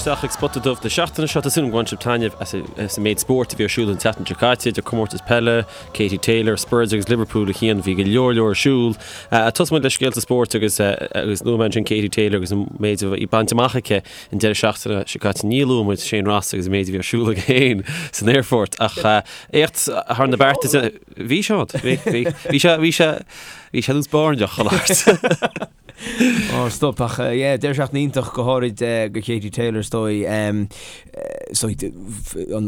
isteach ag Spota Dubh na seachtaine seo. Tá súil agam gur bhain sibh taitneamh as an méid spóirt a bhí ar siúl an tseachtain seo caite, idir comórtas peile, Katie Taylor, Spurs agus Liverpool a Chian, bhí go leor leor ar siúl. Tosóidh muid le scéalta spóirt agus agus luaigh mé ansin Katie Taylor agus an méid a bhí bainte amach aici an deireadh seachtaine seo caite. Ní luaigh muid Shane Ross agus an méid a bhí ar siúl aige féin san aerfort ach éacht thar na bearta. Bhí Seán, bhí, bhí, bhí sé, bhí sé, bhí sé nós báirneach a labhairt. Ó, stop, ach yeah, deireadh seachtaine iontach go háirid do Katie Taylor is dóigh. Is dóigh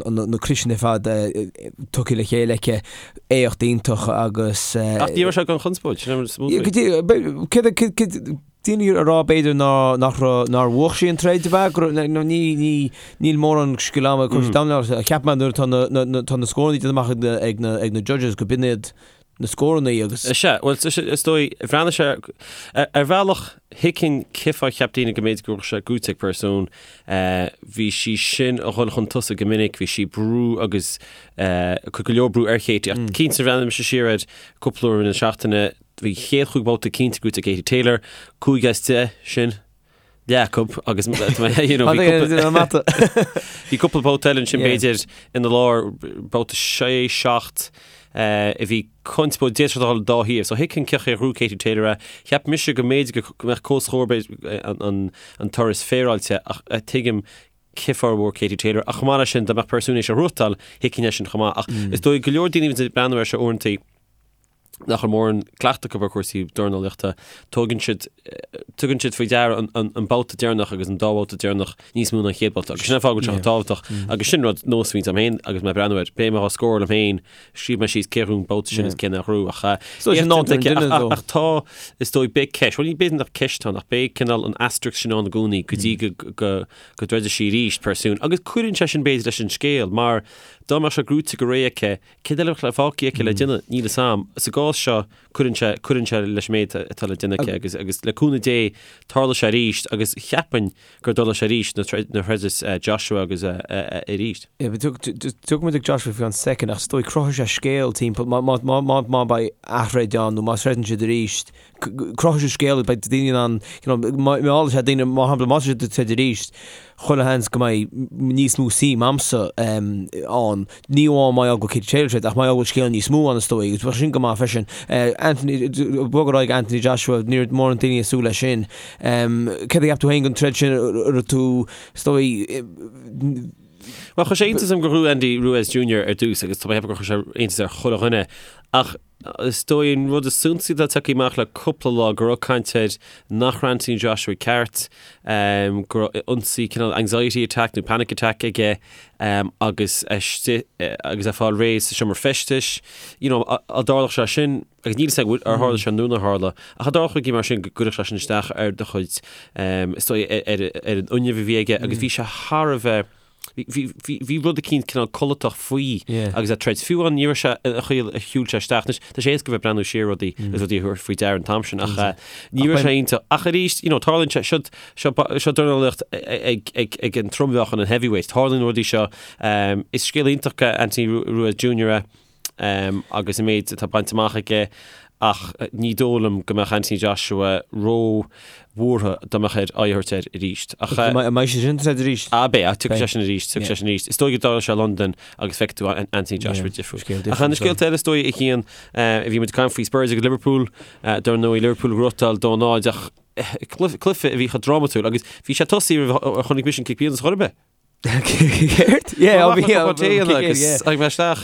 na criosanna ar fad tugtha le chéile aici, éacht iontach agus. Ach ní raibh sé gan chonspóid, sin an smúid. Céard daoine a rá b'fhéidir ná nach raibh nár bhuaigh sí an troid ab ea go raibh nó ní ní níl mórán scil ama cúrsaí mm. Cheap mé nuair atá na na tá na scóranna déanta amach ag na ag na ag na judges go b'in iad na scóranna agus. Is ea, bhuel, is dóigh, bhreathnaigh sé, ar bhealach, thuigfinn cén fáth cheap daoine go mb'fhéidir go raibh sé gnóite ag Persoon. Bhí sí sin a dhul chun tosaigh go minic, bhí sí brú agus cur go leor brú ar Katie. Ach cinnte, bhreathnaigh mise siar air cúpla uair na seachtaine, bhí chéad chúig bhabhta cinnte gnóite ag Katie Taylor, 5 as 10 sin. leath acu agus you know, bhí cúpla babhta eile ansin b'fhéidir ina lár babhta 6 7 a bhí conspóid d'fhéadfadh sé dul dá thaobh. So thuigfinn cén chaoi ar ghnóthaigh Katie Taylor é. Cheap mise go mb'fhéidir go mbeadh comhscór an an turas féaráilte ach tuigim cén fáth ar bhuaigh Katie Taylor ach chomh maith leis sin dá mbeadh Persoon théis a ghnóthachtáil thuigfinn é sin chomh maith ach is dóigh go leor daoine a bhíonn ag breathnú air seo uaireanta nach bhfuil mórán cleachtadh acu ar chúrsaí dornálaíochta, tógann siad, tugann siad faoi deara an, an, an babhta deireanach agus an dá bhabhta deireanach níos mó ná an chéad bhabhta. Agus sin an fáth go bhfuil sé chomh tábhachtach. Agus sin rud nós a bhíonns agam féin agus mé ag breathnú air. Beidh mé á scóráil liom féin, scríobh mé síos cé a ghnóthaigh an babhta sin is cé nár ghnóthaigh. Ach, So sin éacht nádúr an aici. duine, Ach, ach, though. ach tá, is dóigh, beidh ceist, bhuel ní b'fhéidir nach ceist atá ann, ach beidh cineál an asterisk sin ann i gcónaí go dtí go, go, go dtroidfidh sí arís, Persoon. Agus cuireann sé sin b'fhéidir leis an scéal, mar dá mbeadh sé gnóite go réidh aici, Céard eile a bheadh fágtha aici le déanamh? Níl fhios a'm. Sa gcás seo, cuireann sé, cuireann sé leis an méid atá le déanamh aici agus, agus le cúnamh Dé, tarlóidh sé arís agus cheapfainn go dtarlóidh sé arís nuair a throidfeas Joshua agus arís. Yeah, but tiocfaidh muid ag Joshua faoi cheann soicind ach is dóigh cruthóidh sé scéal timpeall, má, má, má, má, má beidh aththroid ann nó má throideann siad arís, cruthóidh sé scéal, beidh daoine in ann, you know, meallfaidh sé daoine, mar shampla, má tá siad ag troid arís, chuile sheans go mbeidh níos mó suim a'msa ann, ní amháin mar gheall go Katie Taylor troid, ach mar gheall go bhfuil scéal níos mó ann is dóigh, agus bheadh sin go maith freisin. Anthony, bog ar aghaidh Anthony Joshua, ní raibh mórán daoine ag súil leis sin. Céard a cheap tú féin den troid sin, raibh tú, is dóigh, Bhuel, chuir sé iontas orm gur ghnóthaigh Andy Ruiz Jr. ar dtús agus tá mé ag ceapadh gur chuir sé iontas ar chuile dhuine ach Is dóigh an rud is suntasaí atá tagtha amach le cúpla lá go raibh caint air nach raibh Anthony Joshua ceart, go raibh ionsaí cineál anxiety attack nó panic attack aige agus é istigh agus é ag fáil réidh sa seomra feistis. You know, dá dtarlódh sé sin, agus níl a fhios agam ar tharla sé nó nár tharla, ach dá dtarlódh rudaí mar sin go gcuirfeadh sé sin isteach ar do chuid, is dóigh ar an fhuinneamh a bhí aige agus bhí sé thar a bheith, Bhí rud eicínt cineál codlatach faoi agus é ag troid. Fiú amháin ní raibh sé an chaoi a shiúil sé isteach. Anois, tá sé éasca bheith ag breathnú siar ar rudaí agus rudaí a thabhairt faoi deara an t-am sin ach ní raibh sé iontach. Ach arís, you know, tarlaíonn sé, seo, seo, seo dornálaíocht ag, ag, ag an trommheáchan, an heavyweight. Tarlaíonn rudaí seo. Is scéal iontach é Anthony Ruiz Jr. é. agus an méid atá bainte amach aige ach ní dóigh liom go mbeadh Anthony Joshua ró-bhuartha dá mbeadh air aghaidh a thabhairt air arís. Ach an mbeidh sé sin ag troid arís? Ah beidh, tiocfaidh sé sin arís, tiocfaidh sé sin arís. Is dóigh go dtarlóidh sé i Londain agus feicfidh tú Anthony Joshua difriúil. Ach na scéalta eile is dóigh a Chian, bhí muid ag caint faoi Spurs agus Liverpool, dar ndóigh Liverpool ag gnóthachtáil 2-0 ach cluiche a bhí chomh drámatúil agus bhí sé tosaithe roimh a chonaic mise an cic pionóis chor ar bith. Céard? Yeah, Bhí agus ag bheith isteach.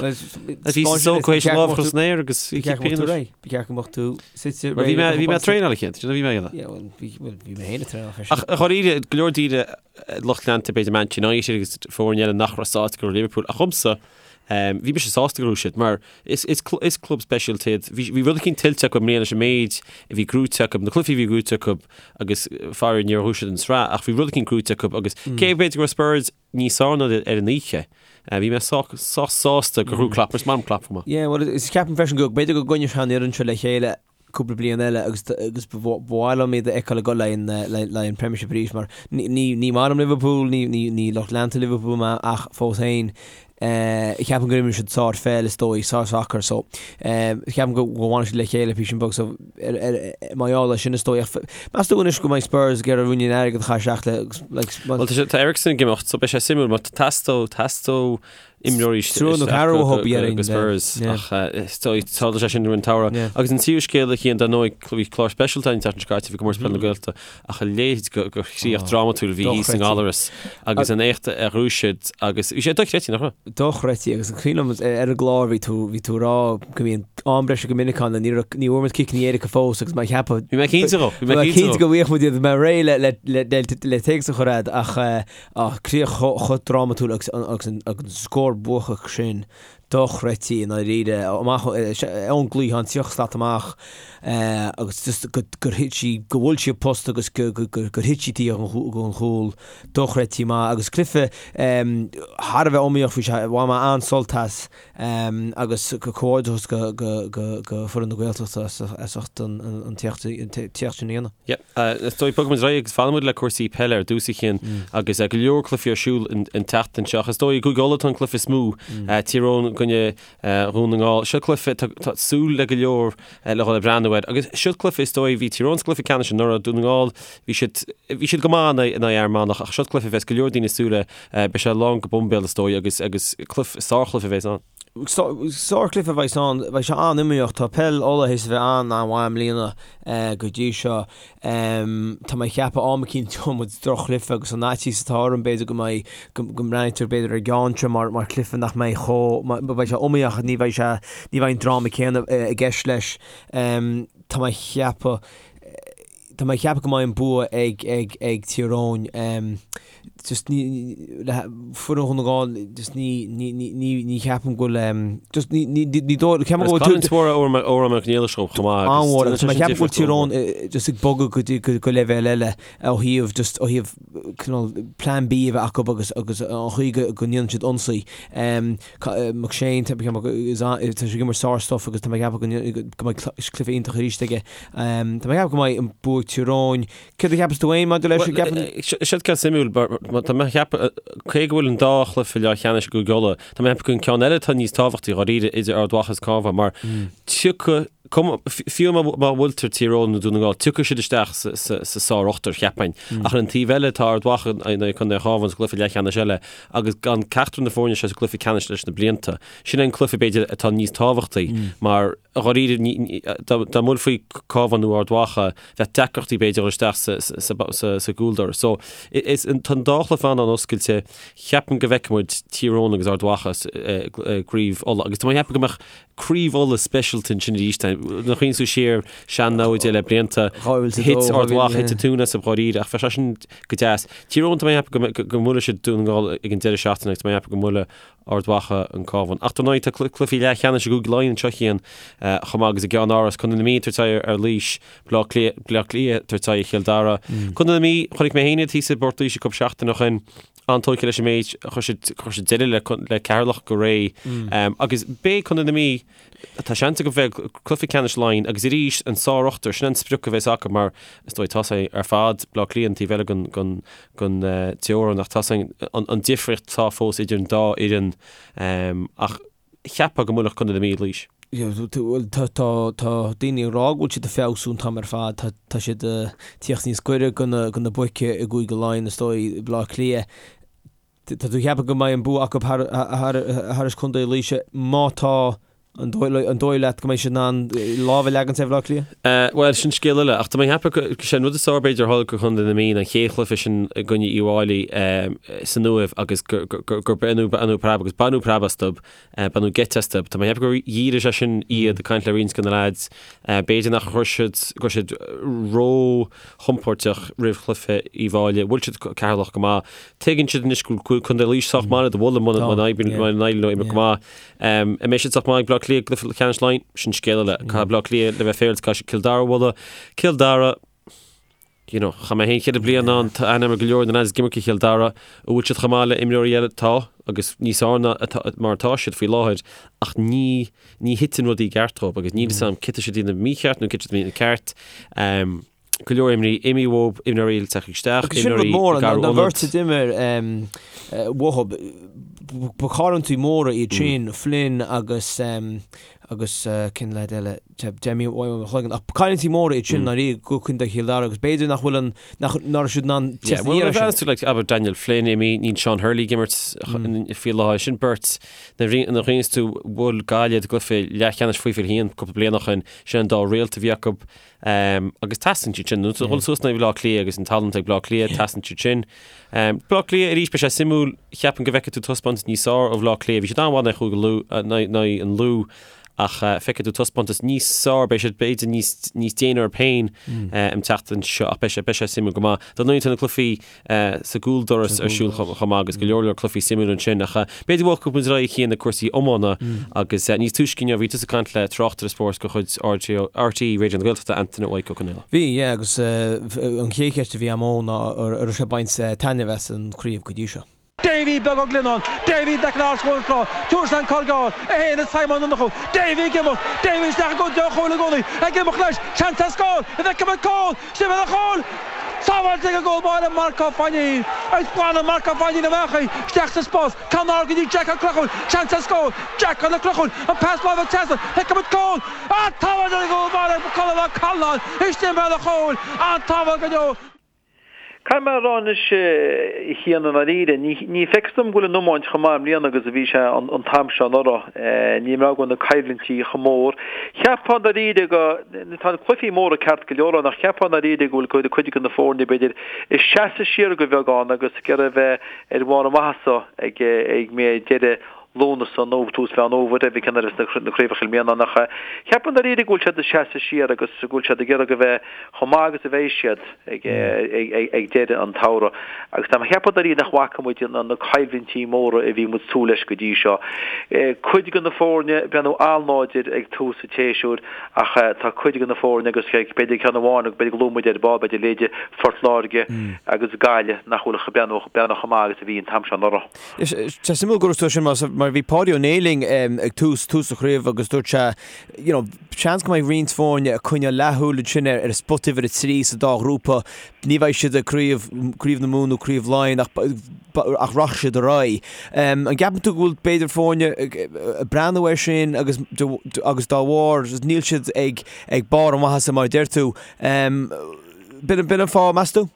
Bhí so go éis lámh chun san aer agus bhí cic pionóis. Ba cheart go mbeadh tú suite Bhí mé bhí mé ag traenáil a Chian, sin a bhí mé ag déanamh. Yeah, well, bhí well, bhí mé féin ag traenáil freisin. Ach dháiríre, go leor daoine lucht leanta b'fhéidir Manchester United agus foirne eile nach raibh sásta go raibh Liverpool ach dhomsa bhí mise sásta go raibh siad mar is is is club speisialta iad. Bhí bhí rud eicínt tuillte acu i mbliana leis an méid a bhí gnóite acu, na cluichí a bhí gnóite acu agus faraor níor ghnóthaigh siad an tsraith ach bhí rud eicínt gnóite acu agus cé b'fhéidir go raibh Spurs níos fearr ná ar an oíche, bhí mé sách sách sásta gur ghnóthaigh Klopp, mar is maith liom Klopp chomh maith. Yeah, well is ceapaim freisin go b'fhéidir go gcoinneoidh sé an fhoireann seo le chéile cúpla bliain eile agus agus ba mhaith liom iad a fheiceáil ag dul le le an Premiership arís mar ní ní ní maith liom Liverpool, ní ní ní lucht leanta Liverpool mé ach fós féin. Ceapaim gur imir siad sár-pheil is dóigh, sár-sacar so ceapaim go bhfanfaidh siad le chéile píosa beag so mar gheall air sin is dóigh. Ach meas tú anois go mbeidh Spurs ag iarraidh ruainnín airgid a chaitheamh isteach le like Bhuel tá sé tá Eriksen ag imeacht so beidh sé suimiúil mar teastóidh teastóidh imreoirí Triúr nó ceathrar uathu go Spurs ach is dóigh tarlóidh sé sin roimh an tsamhradh. Agus an tríú scéal a Chian dar ndóigh bhí clár speisialta an tseachtain seo caite bhí comórtas peile na Gaeltachta Ach a leithéid de chríoch drámatúil a bhí thíos i nGallaras agus an éacht a ghnóthaigh siad agus bhí sé dochreidte, nach raibh? Dochreidte agus is cuimhin liom ar an gclár bhí tú, bhí tú ag rá go mbíonn am breise go minic ann ní raibh, ní bhfuair muid ciceanna éirice fós agus mé ag ceapadh, Bhí mé cinnte dhó, bhí mé cinnte go bhfaigheadh muid iad, bhí mé réidh le, le, le, le, le téacs a chur agat ach ah, críoch chomh drámatúil agus, agus an, agus an scór buacach sin. dochreidte i ndáiríre, amach ón gcliathán, 30 slat amach agus just gur thit sí, go bhuail sí an post agus gur thit sí taobh den chúl, dochreidte maith agus cluiche thar a bheith iomaíoch, bhí sé, bhain mé an-sult as agus comhghairdeachas go foireann na Gaeltachta as ucht an t-éacht sin a dhéanamh. Yep. Is dóigh, bogfaidh muid ar aghaidh agus fanfaidh muid le cúrsaí peile ar dtús a Chian agus go leor cluichí ar siúl an tseachtain seo. Is dóigh i gCúige Uladh tá an cluiche is mó, Tír Eoghain i gcoinne Dhún na nGall. Seo cluiche, tá súil le go leor le dhul ag breathnú air. Agus seo cluiche is dóigh, bhí Tír Eoghain sa gcluiche ceannais anuraidh, Dún na nGall, bhí siad, bhí siad go maith in aghaidh Fhear Manach ach seo cluiche a bheas go leor daoine ag súil le, beidh sé lán go boimbéal is dóigh agus, agus cluiche, sárchluiche a bheas ann. Sárchluiche a bheas ann, beidh sé an-iomaíoch. Tá peil Uladh théis a bheith an-an-mhaith i mbliana go dtí seo. Tá mé ag ceapadh am eicínt gheobhaidh muid droch-chluiche agus an fhaitíos atá orm b'fhéidir go mbeidh, go mbreathnaítear b'fhéidir ar an gceann seo mar mar chluiche nach mbeidh chomh, beidh sé iomaíoch ach ní bheidh sé, ní bheidh an dráma céanna i gceist leis. Tá mé ag ceapadh, tá mé ag ceapadh go mbeidh an bua ag ag ag Tír Eoghain. Just ní, le foireann Dhún na nGall, just ní, ní, ní, ní, ní cheapaim go bhfuil, em, just ní, ní, ní, ní dóigh, ceapaim go bhfuil Canúint mhór Odhrán Mac Niallais chomh maith agus An-mhór, agus tá mé ag ceapadh go bhfuil Tír Eoghain eh, just ag bogadh go dtí, go, go leibhéal eile ó thaobh, just ó thaobh cineál plan B a bheith acu agus, agus an chaoi go, go ndéanann siad ionsaí. Em, Ca- eh, McShane, tá mé ag ceapadh go, is a- tá sé ag imirt sár-stuff agus tá mé ag ceapadh go ndéan- go mbeidh cl- cluiche iontach arís aige. Em, tá mé ag ceapadh go mbeidh an bua ag Tír Eoghain. Céard a cheapas tú féin maidir leis an gceapann? Seo ceann suimiúil, tá mé ag ceapadh, cé go bhfuil an dá chluiche leathcheannais i gCúige Uladh, tá mé ag ceapadh go an ceann eile atá níos tábhachtaí dháiríre idir Ard Mhacha is Cabhán mar tiocfaidh, fiú má bhuailtear Tír Eoghain nó Dún na Ngall, tiocfaidh siad isteach sa sár-ochtar, cheapfainn. Ach ar an taobh eile tá Ard Mhacha in aghaidh Contae an Chabháin sa gcluiche leathcheannais eile agus gan ceachtar na foirne seo sa gcluiche ceannais leis na blianta. Sin é an cluiche b'fhéidir atá níos tábhachtaí mar dháiríre dá mbuailfí Cabhán nó Ard Mhacha, bheadh deacrachtaí b'fhéidir dul isteach sa gcúldoras. So, is, tá an dá chluiche an-oscailte. Cheapfainn go bhfeicfidh muid Tír Eoghain agus Ard Mhacha i gCraobh Uladh. Agus tá mé ag ceapadh go mbeadh Craobh Uladh speisialta ansin arís. Nuair a chuimhníonn tú siar sean-namhaid le blianta, thit Ard Mhacha, thit an tóin astu dháiríre, ach bheadh sé sin go deas. Tír Eoghain, tá mé ag ceapadh go mbuailfidh siad Dún na nGall ag an deireadh seachtaine agus tá mé ag ceapadh go mbuailfidh Ard Mhacha an Cabhán. Ach dar ndóigh tá cluichí leathcheannais i gCúige Laighean anseo a Chian chomh maith agus i gCeann Áras, Contae na Mí ag tabhairt aghaidh ar Laois, Baile Átha Cliath, Bleá Cliath ag tabhairt aghaidh ar Chill Dara. Contae na Mí, chonaic mé féin iad thíos i bPort Laoise cúpla seachtain ó shin, an-tógtha leis an méid, chuir siad, chuir siad deireadh le, le Ceatharlach go réidh. Agus beidh Contae na Mí, tá seans acu bheith i gcluiche ceannais Laighean agus arís an sár-ochtar, sin an sprioc a bheas acu mar is dóigh tá sé ar fad Bleá Cliath an taobh eile den, den, den teorainn ach tá an difríocht atá fós idir an dá fhoireann ach cheapfá go mbuailfeadh Contae na Mí Laois. Tá daoine ag rá go bhfuil siad ag feabhsú an t-am ar fad, tá siad ag tíocht níos gaire do na boic i gCúige Laighean is dóigh, Bleá Cliath. Tá tú ag ceapadh go mbeidh an bua acu thar Contae Laoise má tá An dóigh leat go mbeidh siad in ann lámh a leagan ar Bhaile Átha Cliath? Bhuel, sin scéal eile. Ach tá mé ag ceapadh go sé an rud is fearr b'fhéidir a tharla do Chontae na Mí an chéad chluiche sin i gcoinne Uíbh Fhailí san Uaimh agus gur baineadh preab agus baineadh preab astu, baineadh geit astu. Tá mé ag ceapadh gur dhírigh sé sin iad ag caint le roinnt de na leaids. B'fhéidir nach raibh siad, go raibh siad ró-chompóirteach roimh chluiche Uíbh Fhailí. Bhuail siad Ceatharlach go maith. Tuigeann siad anois go bhfuil Contae Laoise sách maith le do bhualadh muna n-éiríonn leo imirt go maith. An mbeidh siad sách maith ag Bleá Cliath i gcluiche ceannais Laighean? Sin scéal eile. Caithfidh Bleá Cliath le bheith féaráilte, caithfidh siad Cill Dara a bhualadh. Cill Dara, you know, chaith mé féin ceithre bliana ann, tá aithne agam ar go leor de na lads ag imirt do Chill Dara. An bhfuil siad chomh maith le imreoirí eile? Tá, agus níos fearr ná atá, mar atá siad faoi láthair, ach ní, ní thiteann rudaí i gceart dóibh agus níl fhios agam cé tá siad ag déanamh mícheart nó cé tá siad ag déanamh ceart. Go leor imreoirí imithe uathu, imreoirí eile tagtha isteach, Agus sin rud imreoirí mór, ag an athrú an ionad. bheirt a d'imir uathu, ba chailliúintí móra iad sin, Flynn agus agus cén leaid eile, d'imigh uaim ó mo chloigeann, ach cailliúintí móra iad sin ndáiríre do Chontae Chill Dara agus b'fhéidir nach bhfuil an, nach, nach raibh siad in ann Yeah, teacht well, aniar nuair a air sin. bhreathnaíonn tú, like, abair Daniel Flynn imithe, níl Sean Hurley ag imirt faoi láthair, sin beirt, nuair a bhreathnaíonn tú, bhuail Gaillimh i gcluiche leathcheannais faoi 21 cúpla bliain ó shin, sin an dá réalt a bhí acu. Agus teastaíonn siad sin. Nuair a dhul suas in aghaidh Bhaile Átha Cliath agus an tallann ag Baile Átha Cliath, teastaíonn siad sin. Baile Átha Cliath arís, beidh sé suimiúil, cheapfainn go bhfeicfidh tú taispeántas níos fearr ó Bhaile Átha Cliath. Bhí siad an-mhaith in aghaidh Chúige Lú, in aghaidh an Lú ach feicfidh tú taispeántas níos fearr, beidh siad b'fhéidir níos, níos déine orthu féin an tseachtain seo ach beidh sé, beidh sé suimiúil go maith. Dar ndóigh tá na cluichí sa gcúldoras ar siúl chomh maith agus go leor leor cluichí suimiúil ansin ach b'fhéidir go bhfágfaidh muid ar aghaidh chuig na cúrsaí iomána agus níos túisce inniu bhí tusa ag caint le tráchtaire spóirt de chuid RTÉ Raidió na Gaeltachta, Antaine Mhaidhc Ó Conghaile. Bhí, yeah, agus an chéad cheist a bhí agam dó ná an raibh sé ag baint taitneamh as an chraobh go dtí seo. Davy Beag Ó Glionáin, Davy Declan Arse Trá, Tabhair an cor gearr, é féin is Simon Ó Murchú, Davy ag imeacht, Davy isteach i gcontae an chúil i gcónaí, ag imeacht leis, seans ar scór, an bhfeicfidh muid cúl, Sin an chúl! Sábháilte ag an gcúl báire Marc Ó Fainín. Agus glanann Marc Ó Fainín amach í, isteach sa spás, ceann ard go dtí Jack Ó Conchúir, seans ar scór, Jack Ó Conchúir, an pas láimhe trasna, feicfidh muid cúl! An tsábháil ag an gcúl báire Colm Ó Callanáin, istigh i mbéal an chúil, an tsábháil go deo. Caithfidh mé a rá anois, a Chian, i ndáiríre, ní feictear dom go bhfuil an iomáint chomh maith i mbliana agus a bhí sé an t-am seo anuraidh. Ní mé go bhfuil na coimhlintí chomh mór. Cheapfá i ndáiríre go, tá na cluichí móra ceart go leor ann ach cheapfá i ndáiríre go bhfuil cuid de na foirne b'fhéidir ag seasamh siar de bheagán agus ag iarraidh a bheith ar bharr a maitheasa ag mé deireadh Lúnasa nó tús Mheán Fhómhair, pé cén uair a bheas na craobhacha i mbliana ach cheapfainn i ndáiríre go bhfuil siad ag seasamh siar agus go bhfuil siad ag iarraidh a bheith chomh maith agus a bheidh siad ag deireadh an tsamhraidh. Agus tá mé ag ceapadh i ndáiríre nach bhfaca muid na coimhlintí móra a bhí muid ag súil leis go dtí seo. Cuid de na foirne ag breathnú an-láidir ag tús an tséasúir ach tá cuid de na foirne agus b'fhéidir ceann amháin agus b'fhéidir go luafaidh muid ar ball b'fhéidir leithéide Phort Láirge agus Gaillimh nach bhfuil ag breathnú chomh maith agus a bhí an t-am seo anuraidh. Tá suimiúil go raibh tú sin mar bhí Páidí Ó Néill linn ag tús tús an chraobh agus dúirt sé you know seans go mbeidh roinnt foirne ag coinneáil leathshúil ansin ar ar spota uimhir a 3 sa dá ghrúpa. Ní bheidh siad ag craobh craobh na Mumhan nó craobh Laighean ach ach rachaidh siad ar aghaidh. An gceapann tú go bhfuil b'fhéidir foirne ag breathnú air sin agus agus dá bharr níl siad ag ag barr a maitheasa mar a deir tú. B'in b'in an fáth meas tú?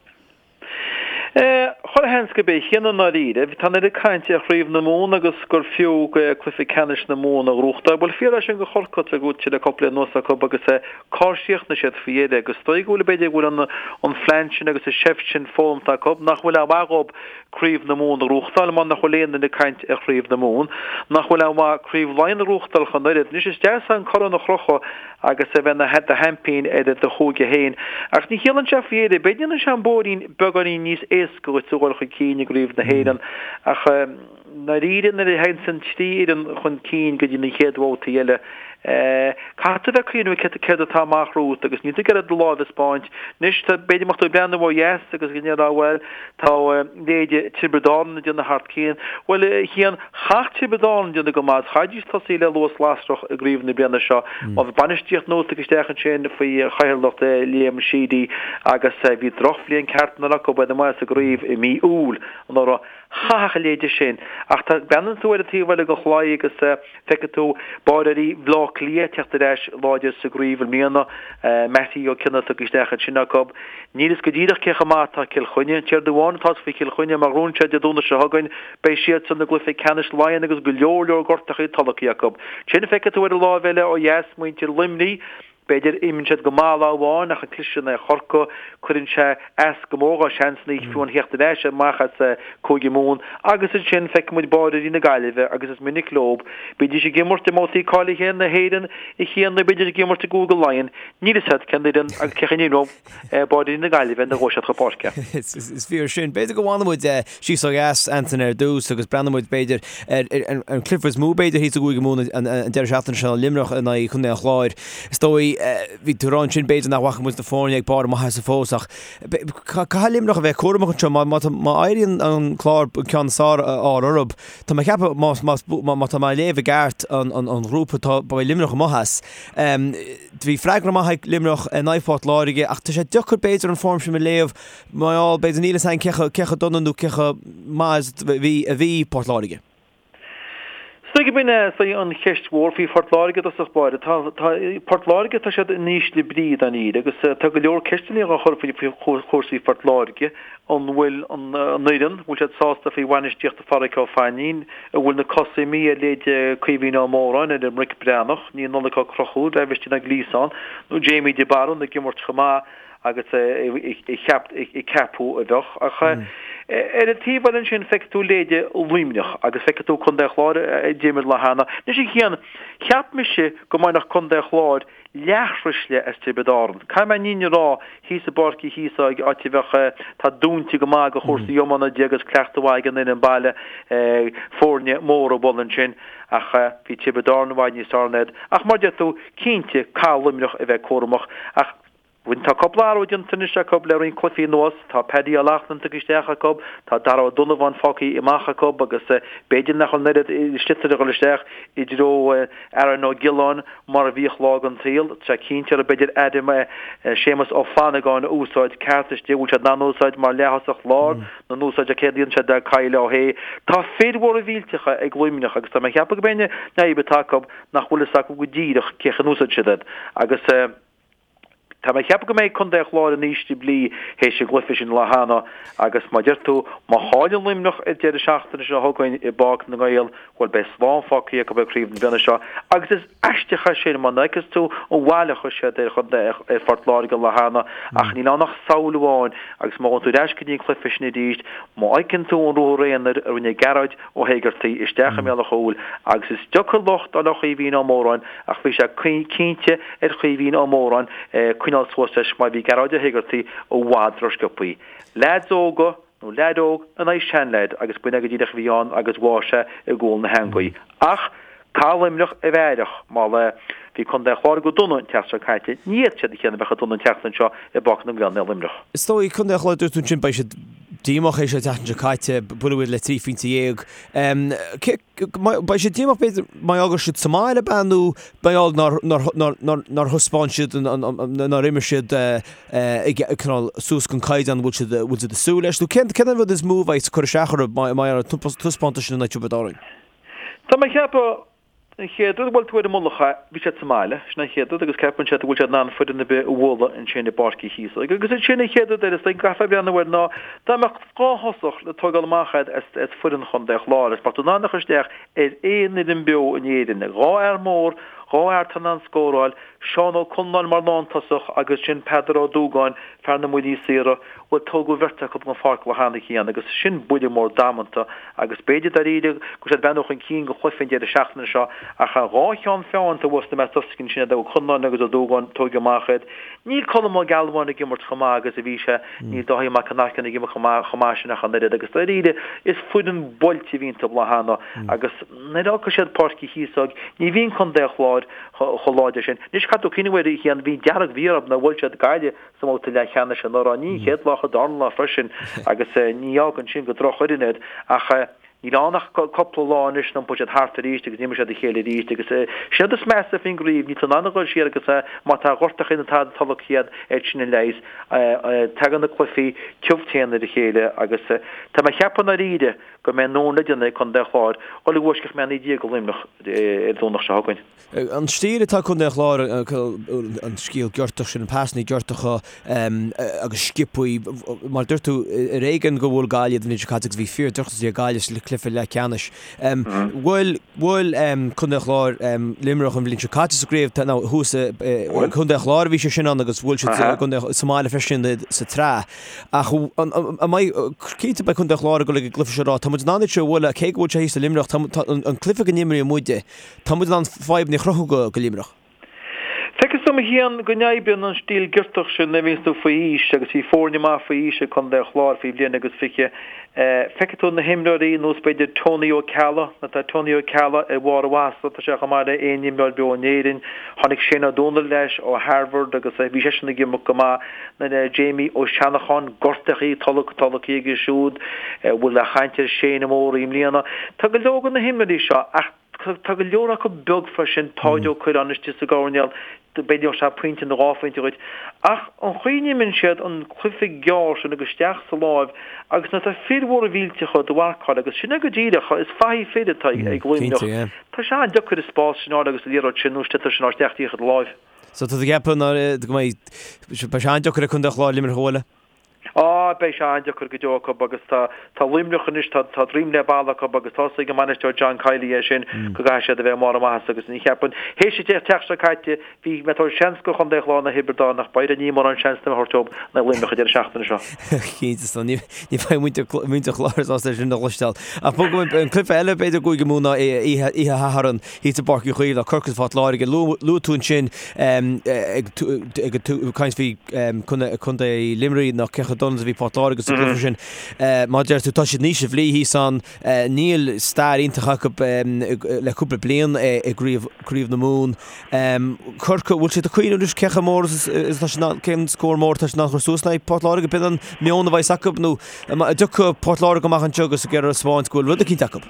Chuile sheans gurb é a Chian i ndáiríre. Tá an oiread cainte ar Chraobh na Mumhan agus gur fiú cluiche ceannais na Mumhan a ghnóthachtáil. Bhuel, fíor é sin do Chorcaigh, tá gnóite le cúpla bliain anuas acu agus cár chríochnaigh siad faoi dheireadh agus is dóigh go bhfuil, b'fhéidir go bhfuil an phlean sin agus an seift sin foghlamtha acu nach bhfuil aon mhaith dhóibh Craobh na Mumhan a ghnóthachtáil mar nach bhfuil aon duine ag caint ar Chraobh na Mumhan, nach bhfuil aon mhaith Craobh Laighean a ghnóthachtáil ach an oiread. Anois is deas an corn a chrochadh agus a bheith ina do sheaimpín ar do chúige féin. Ach ní chiallaíonn sé faoi dheireadh. B'fhéidir ndéanann sé an bóithrín beagáinín níos éasca dhuit a dhul chun cinn i gCraobh na hÉireann ach i ndáiríre nuair a théann an trí fhoireann chun cinn go dtí na chéad bhabhtaí eile caithfidh tú a bheith ag cuimhneamh céard atá amach romhat agus níl tú ag iarraidh do láimh a 'spáint. Anois tá b'fhéidir má tá tú ag breathnú ó dheas agus go ndéarfá bhuel tá leithéide Tiobraid Árann ag déanamh thar cionn. Bhuel a Chian, Chaithfeadh Tiobraid Árann déanamh go maith agus chaithfidís tosaí le luas lasrach i gcraobh na bliana seo. Má bhí bainistíocht nua tagtha isteach ansin faoi chathaoirleacht Liam Sheedy agus bhí drochbhliain ceart anuraidh acu, baineadh amach as an gcraobh i mí Iúil anuraidh. Chaithfeadh a leithéide sin. Ach tá, breathnaíonn tú ar an taobh eile den chlaí agus feicfidh tú báireoirí Bhaile Átha Cliath ag teacht ar ais láidir sa gcraobh i mbliana, Mattie Ó Cionnaith tagtha isteach ansin acu. Níl fhios go díreach cé chomh maith atá Cill Chainnigh. An t-aon rud amháin atá fhios faoi Chill Chainnigh, má ghnóthaíonn siad Dé Domhnaigh seo chugainn, beidh siadsan i gcluiche ceannais Laighean agus go leor leor gortachaí tolgtha acu. Ansin feicfidh tú ar an láimh eile ó dheas muintir Luimnigh, b'fhéidir, imríonn siad go maith lá amháin ach an cliseadh in aghaidh Chorcaí, cuireann sé as go mór dá seansanna fiú amháin theacht ar ais amach as Cúige Mumhan agus ansin feicfidh muid báireoirí na Gaillimhe agus is minic leo, bídís ag imirt i mbabhtaí cáilithe na hÉireann a Chian nó bídís ag imirt i gCúige Laighean, níl fhios agat cén fhoireann agus cé chaoi a n-imreoidh. Báireoirí na Gaillimhe nuair a ghabhfaidh siad chun páirce. Is fíor sin. B'fhéidir go bhfanfaidh muid síos ó dheas, Antaine, ar dtús agus breathnóidh muid, b'fhéidir, ar an cluiche is mó, b'fhéidir, thíos i gCúige Mumhan an deireadh seachtaine seo, Luimneach in aghaidh Chontae an Chláir. Is dóigh. dóigh, bhí tú ag rá ansin b'fhéidir nach bhfaca muid na foirne ag barr a maitheasa fós ach caithfidh Luimneach a bheith cúramach anseo. Má, má, má éiríonn an Clár an ceann is fearr a fháil orthu, tá mé ag ceapadh má, má, má tá mé ag léamh i gceart an, an, an ghrúpa tá, beidh Luimneach amuigh as. Bhí freagra maith ag Luimneach in aghaidh Phort Láirge ach tá sé deacair b'fhéidir an form sin a léamh mar gheall b'fhéidir níl fhios againn cé chomh, cé chomh dona nó cé chomh maith is a bhí, a bhí Port Láirge. Is dóigh gurb in é an cheist mhór faoi Phort Láirge i dtosach báire. Tá, tá, Port Láirge, tá siad in ísle brí dáiríre agus tá go leor ceisteanna á chur faoi chúrsaí Phort Láirge. An bhfuil an, an fhoireann, an bhfuil siad sásta faoi bhainistíocht Pháraic Ó Fainín? An bhfuil na cosa imithe ar leithéid Caoimhín Ó Móráin, ar Mhick Breathnach, níl Nollaig Ó Conchúir, Aibhistín Ó Gliasáin nó Jamie de Barún ag imirt chomh maith agus a ceapadh a bheadh. Ach ar an taobh eile ansin feicfidh tú leithéide Luimneach agus feicfidh tú Contae an Chláir a d'imir lá cheana. Anois a Chian, cheap mise go mbainfeadh Contae an Chláir leaththruisle as Tiobraid Árann. Caithfidh mé an fhírinne a rá, thíos i bPáirc Uí Chíosóg, áit a bheadh, tá dúinte go maith do chúrsaí iomána de agus cleachtadh mhaith ag an fhoireann baile, foirne móra a bhualadh ansin. Ach bhí Tiobraid Árann i bhfad níos fearr ná iad. Ach mar a deir tú, cinnte, caithfidh Luimneach a bheith cúramach. Ach. Tá cúpla athrú déanta anois acu le roinnt cluichí anuas. Tá Paddy Ó Loughlin tugtha isteach acu, tá Dara Ó Donnabháin fágtha amach acu agus b'fhéidir nach bhfuil an oiread sliotar ag dul isteach i dtreo Aaron Ó Giolláin mar a bhíodh lá den tsaol. Tá sé cinnte orthu b'fhéidir Adam Séamus Ó Flannagáin a úsáid ceart istigh. Bhfuil siad in ann úsáid mar leath-thosach láir nó an úsáid céard a dhéanann siad le Kyle Ó hAodha. Tá fir mhóra mhillteacha ag Luimneach agus tá mé ag ceapadh go mb'é an fhadhb atá acu nach bhfuil fhios acu go díreach cé chaoi a n-úsáidfidh siad iad agus Tá mé ag ceapadh go mbeidh Contae an Chláir in ísle brí théis an gcluiche sin lá cheana agus mar a deir tú, má chailleann Luimneach ar deireadh seachtaine seo chugainn i bPáirc na nGael, bhuel beidh slán fágtha acu ag craobh na bliana seo agus is aisteach é sin mar nuair a fheiceas tú an bhail a chuir siad ar chontae ar Phort Láirge lá cheana ach níl ann ach samhail amháin agus má ghabhann tú ar ais go dtí an cluiche sin arís, má fheiceann tú an ruathar aonair a rinne Gearóid Ó hÉigeartaigh isteach i mbéal an chúil agus is deacair locht a fháil ar Chaoimhín Ó Móráin ach bhí sé cinnte ar Chaoimhín Ó Móráin coinneáil suas leis mar bhí Gearóid Ó hÉigeartaigh i bhfad ró-sciobthaí. Leaids óga nó leaid óg in aghaidh seanleaid agus b'in é go díreach a bhí ann agus bháigh sé i gcúl na heangaí. Ach caithfidh Luimneach a bheith aireach mar bhí Contae an Chláir go dona an tseachtain seo caite, ní fhéadfaidh siad a chéanna a bheith chomh dona an tseachtain seo i bPáirc na nGael i Luimneach. Is dóigh, Contae an Chláir, dúirt tú ansin, beidh siad díomách théis an tseachtain seo caite, buaileadh iad le 13 phointe. Beidh siad díomách b'fhéidir mar gheall go raibh siad sa mbaile ab ea nó mar gheall nár nár thaispeáin siad nár imir siad cineál suas don caighdeán a bhfuil siad bhfuil siad ag súil leis nó cén cén an rud is mó a bheidh ag cur isteach orthu mar gheall ar an taispeántas sin in aghaidh Tiobraid Árann? Tá mé ag ceapadh An chéad rud, bhuel, tú ar an mullach, bhí siad sa mbaile, sin an chéad rud, agus ceapann siad go bhfuil siad in ann foireann ar bith a bhualadh ansin i bPáirc Uí Chíosóg. Agus ansin an chéad rud eile, is dóigh go gcaithfear breathnú air ná dá mbeadh 2 thosach le tógáil amach agat as, as foireann Chontae an Chláir, agus mbeadh tú in ann a chur isteach ar aon fhoireann beo in Éirinn, 2 fhear mór, 2 fhear atá in ann scóráil, Seán Ó Conláin mar lántosach agus sin Peadar Ó Dúgáin, fear na mbuillí saora, Bhuel, tógadh an bheirt acu den pháirc lá cheana féin agus sin buille mór damanta agus b'fhéidir dáiríre go bhfuil siad ag breathnú chun cinn go chluiche an deireadh seachtaine seo ach an dhá cheann feadhain taobh thuas na meas sin Ó Conláin agus Ó Dúgáin tógtha amach iad. Níl Colm Ó Gealbháin ag imirt chomh maith agus a bhí sé, níl Dáithí Mac an Aircín ag imirt chomh maith chomh maith sin ach an oiread agus dáiríre is foireann buailte a bhí iontu lá cheana agus nuair a fhágfaidh siad Páirc Uí Chíosóg ní bhíonn Contae an Chláir chomh láidir sin. Anois caithfidh tú cuimhneamh air a Chian, bhí dearg-mhí-ádh orthu nár bhuail siad Gaillimh sa mbabhta leathcheannais anuraidh. Ní an chéad lá ach an darna lá freisin agus ní fhágann sin gur drochfhoireann iad ach níl ann ach cúpla lá anois iompóidh siad thart arís agus imreoidh siad a chéile arís agus sin an rud is measa faoin gcraobh, níl tú in ann a dhul siar agus má tá gortachaí nó tada tolgtha agat sin an leigheas. Tagann na cluichí tiubh teann ar a chéile agus tá mé ag ceapadh i ndáiríre go mbeidh an le déanamh ag Contae an Chláir dhul i bhfoisceacht mé 19 do Luimneach ar an Domhnach seo chugainn. An stíl atá ag Contae an Chláir, an scil giortach sin, an pasanna giortacha agus sciobthaí, mar a dúirt tú, ar éigean gur bhuail Gaillimh iad an bhliain seo caite agus bhí fíor drochionsaí ag Gaillimh sa chluiche leathcheannais. Bhuail bhuail Contae an Chláir Luimneach an bhliain seo caite sa gcraobh, nó thuas i gContae an Chláir a bhí sé sin ann agus bhuail siad sa mbaile freisin sa tsraith. Ach an mbeidh, cinnte beidh Contae an Chláir ag dul ag an gcluiche seo ag rá, tá muid in ann iad seo a bhualadh, cé go bhfuil sé thíos i Luimneach, tá an cluiche go n-imríonn muide, Tá muid in ann fadhbanna a chruthú go Luimneach. Feicfidh tú. agam a Chian go n-oibríonn an stíl giortach sin nuair a bhíonns tú faoi aois agus bhí foirne maith faoi aois ag Contae an Chláir faoi bhliain agus 20. Feicfidh tú na himreoirí nós b'fhéidir Tony Ó Ceallaigh, nó tá Tony Ó Ceallaigh ar bharr a mhaitheasa, tá sé chomh maith le aon imreoir beo in Éirinn. Tháinig Shane Ó Dónaill leis ó Harvard agus bhí seisean ag imirt go maith. Nó Jamie Ó Seanacháin, gortaithe, tolgtha aige siúd, bhfuil an-chaint ar Shane Ó Mórdha i mbliana. Tá go leor de na himreoirí seo ach tá go leor acu beag freisin, Páid Ó Cuirreáin istigh sa gcoirnéal, b'fhéidir gheobhadh sé pointe nó dhá phointe dhuit. Ach an chaoi a n-imríonn siad an cluiche gearr sin agus isteach sa láimh agus nuair atá fir mhóra mhillteacha do mharcáil agus sin é go díreach, is fathaigh fir atá ag Luimneach. Tá sé an-deacair an spás sin a fháil agus an liathróid sin nó an sliotar sin a fháil isteach díreach i do láimh. So tá tú ag ceapadh go mbeidh, beidh sé an-deacair ag Contae an Chláir Luimneach a bhualadh? Á, beidh sé an-deacair go deo acu agus tá, tá Luimneach anois, tá, tá droim le balla acu agus tá a fhios ag an mbainisteoir John Kiely é sin go gcaithfidh siad a bheith i mbarr a maitheasa agus ní cheapann, théis an tseachtain seo caite, bhí mé ag tabhairt seans do Chontae an Chláir in aghaidh Thiobraid Árann ach b'fhéidir níl mórán seans na thabhairt dóibh in aghaidh Luimneach an deireadh seachtaine seo. Cinnte, so ní, ní bheidh muintir, muintir Chláir sásta é sin a chloisteáil. Ach bogfaidh muid, an cluiche eile b'fhéidir i gCúige Mumhan ná oíche, oíche Shathairn. Thíos i bPáirc Uí Chaoimh, tá Corcaigh is Port Láirge. Luaigh tú ansin ag caint faoi Contae Luimnigh ná cé chomh dona is a bhí Port Láirge sa gcluiche sin. Mar a deir tú, tá siad in ísle brí thíos ann. Níl stair iontach acu le cúpla bliain i gCraobh na Mumhan. Corcaigh, bhfuil siad ag cuimhneamh anois cé chomh mór is atá siad, cén scór mór atá siad in ann a chur suas in aghaidh Port Láirge? B'in an meon a bheas acu nó an dtiocfaidh Port Láirge amach anseo agus ag iarraidh a thaispeáint go bhfuil rud eicínt acu?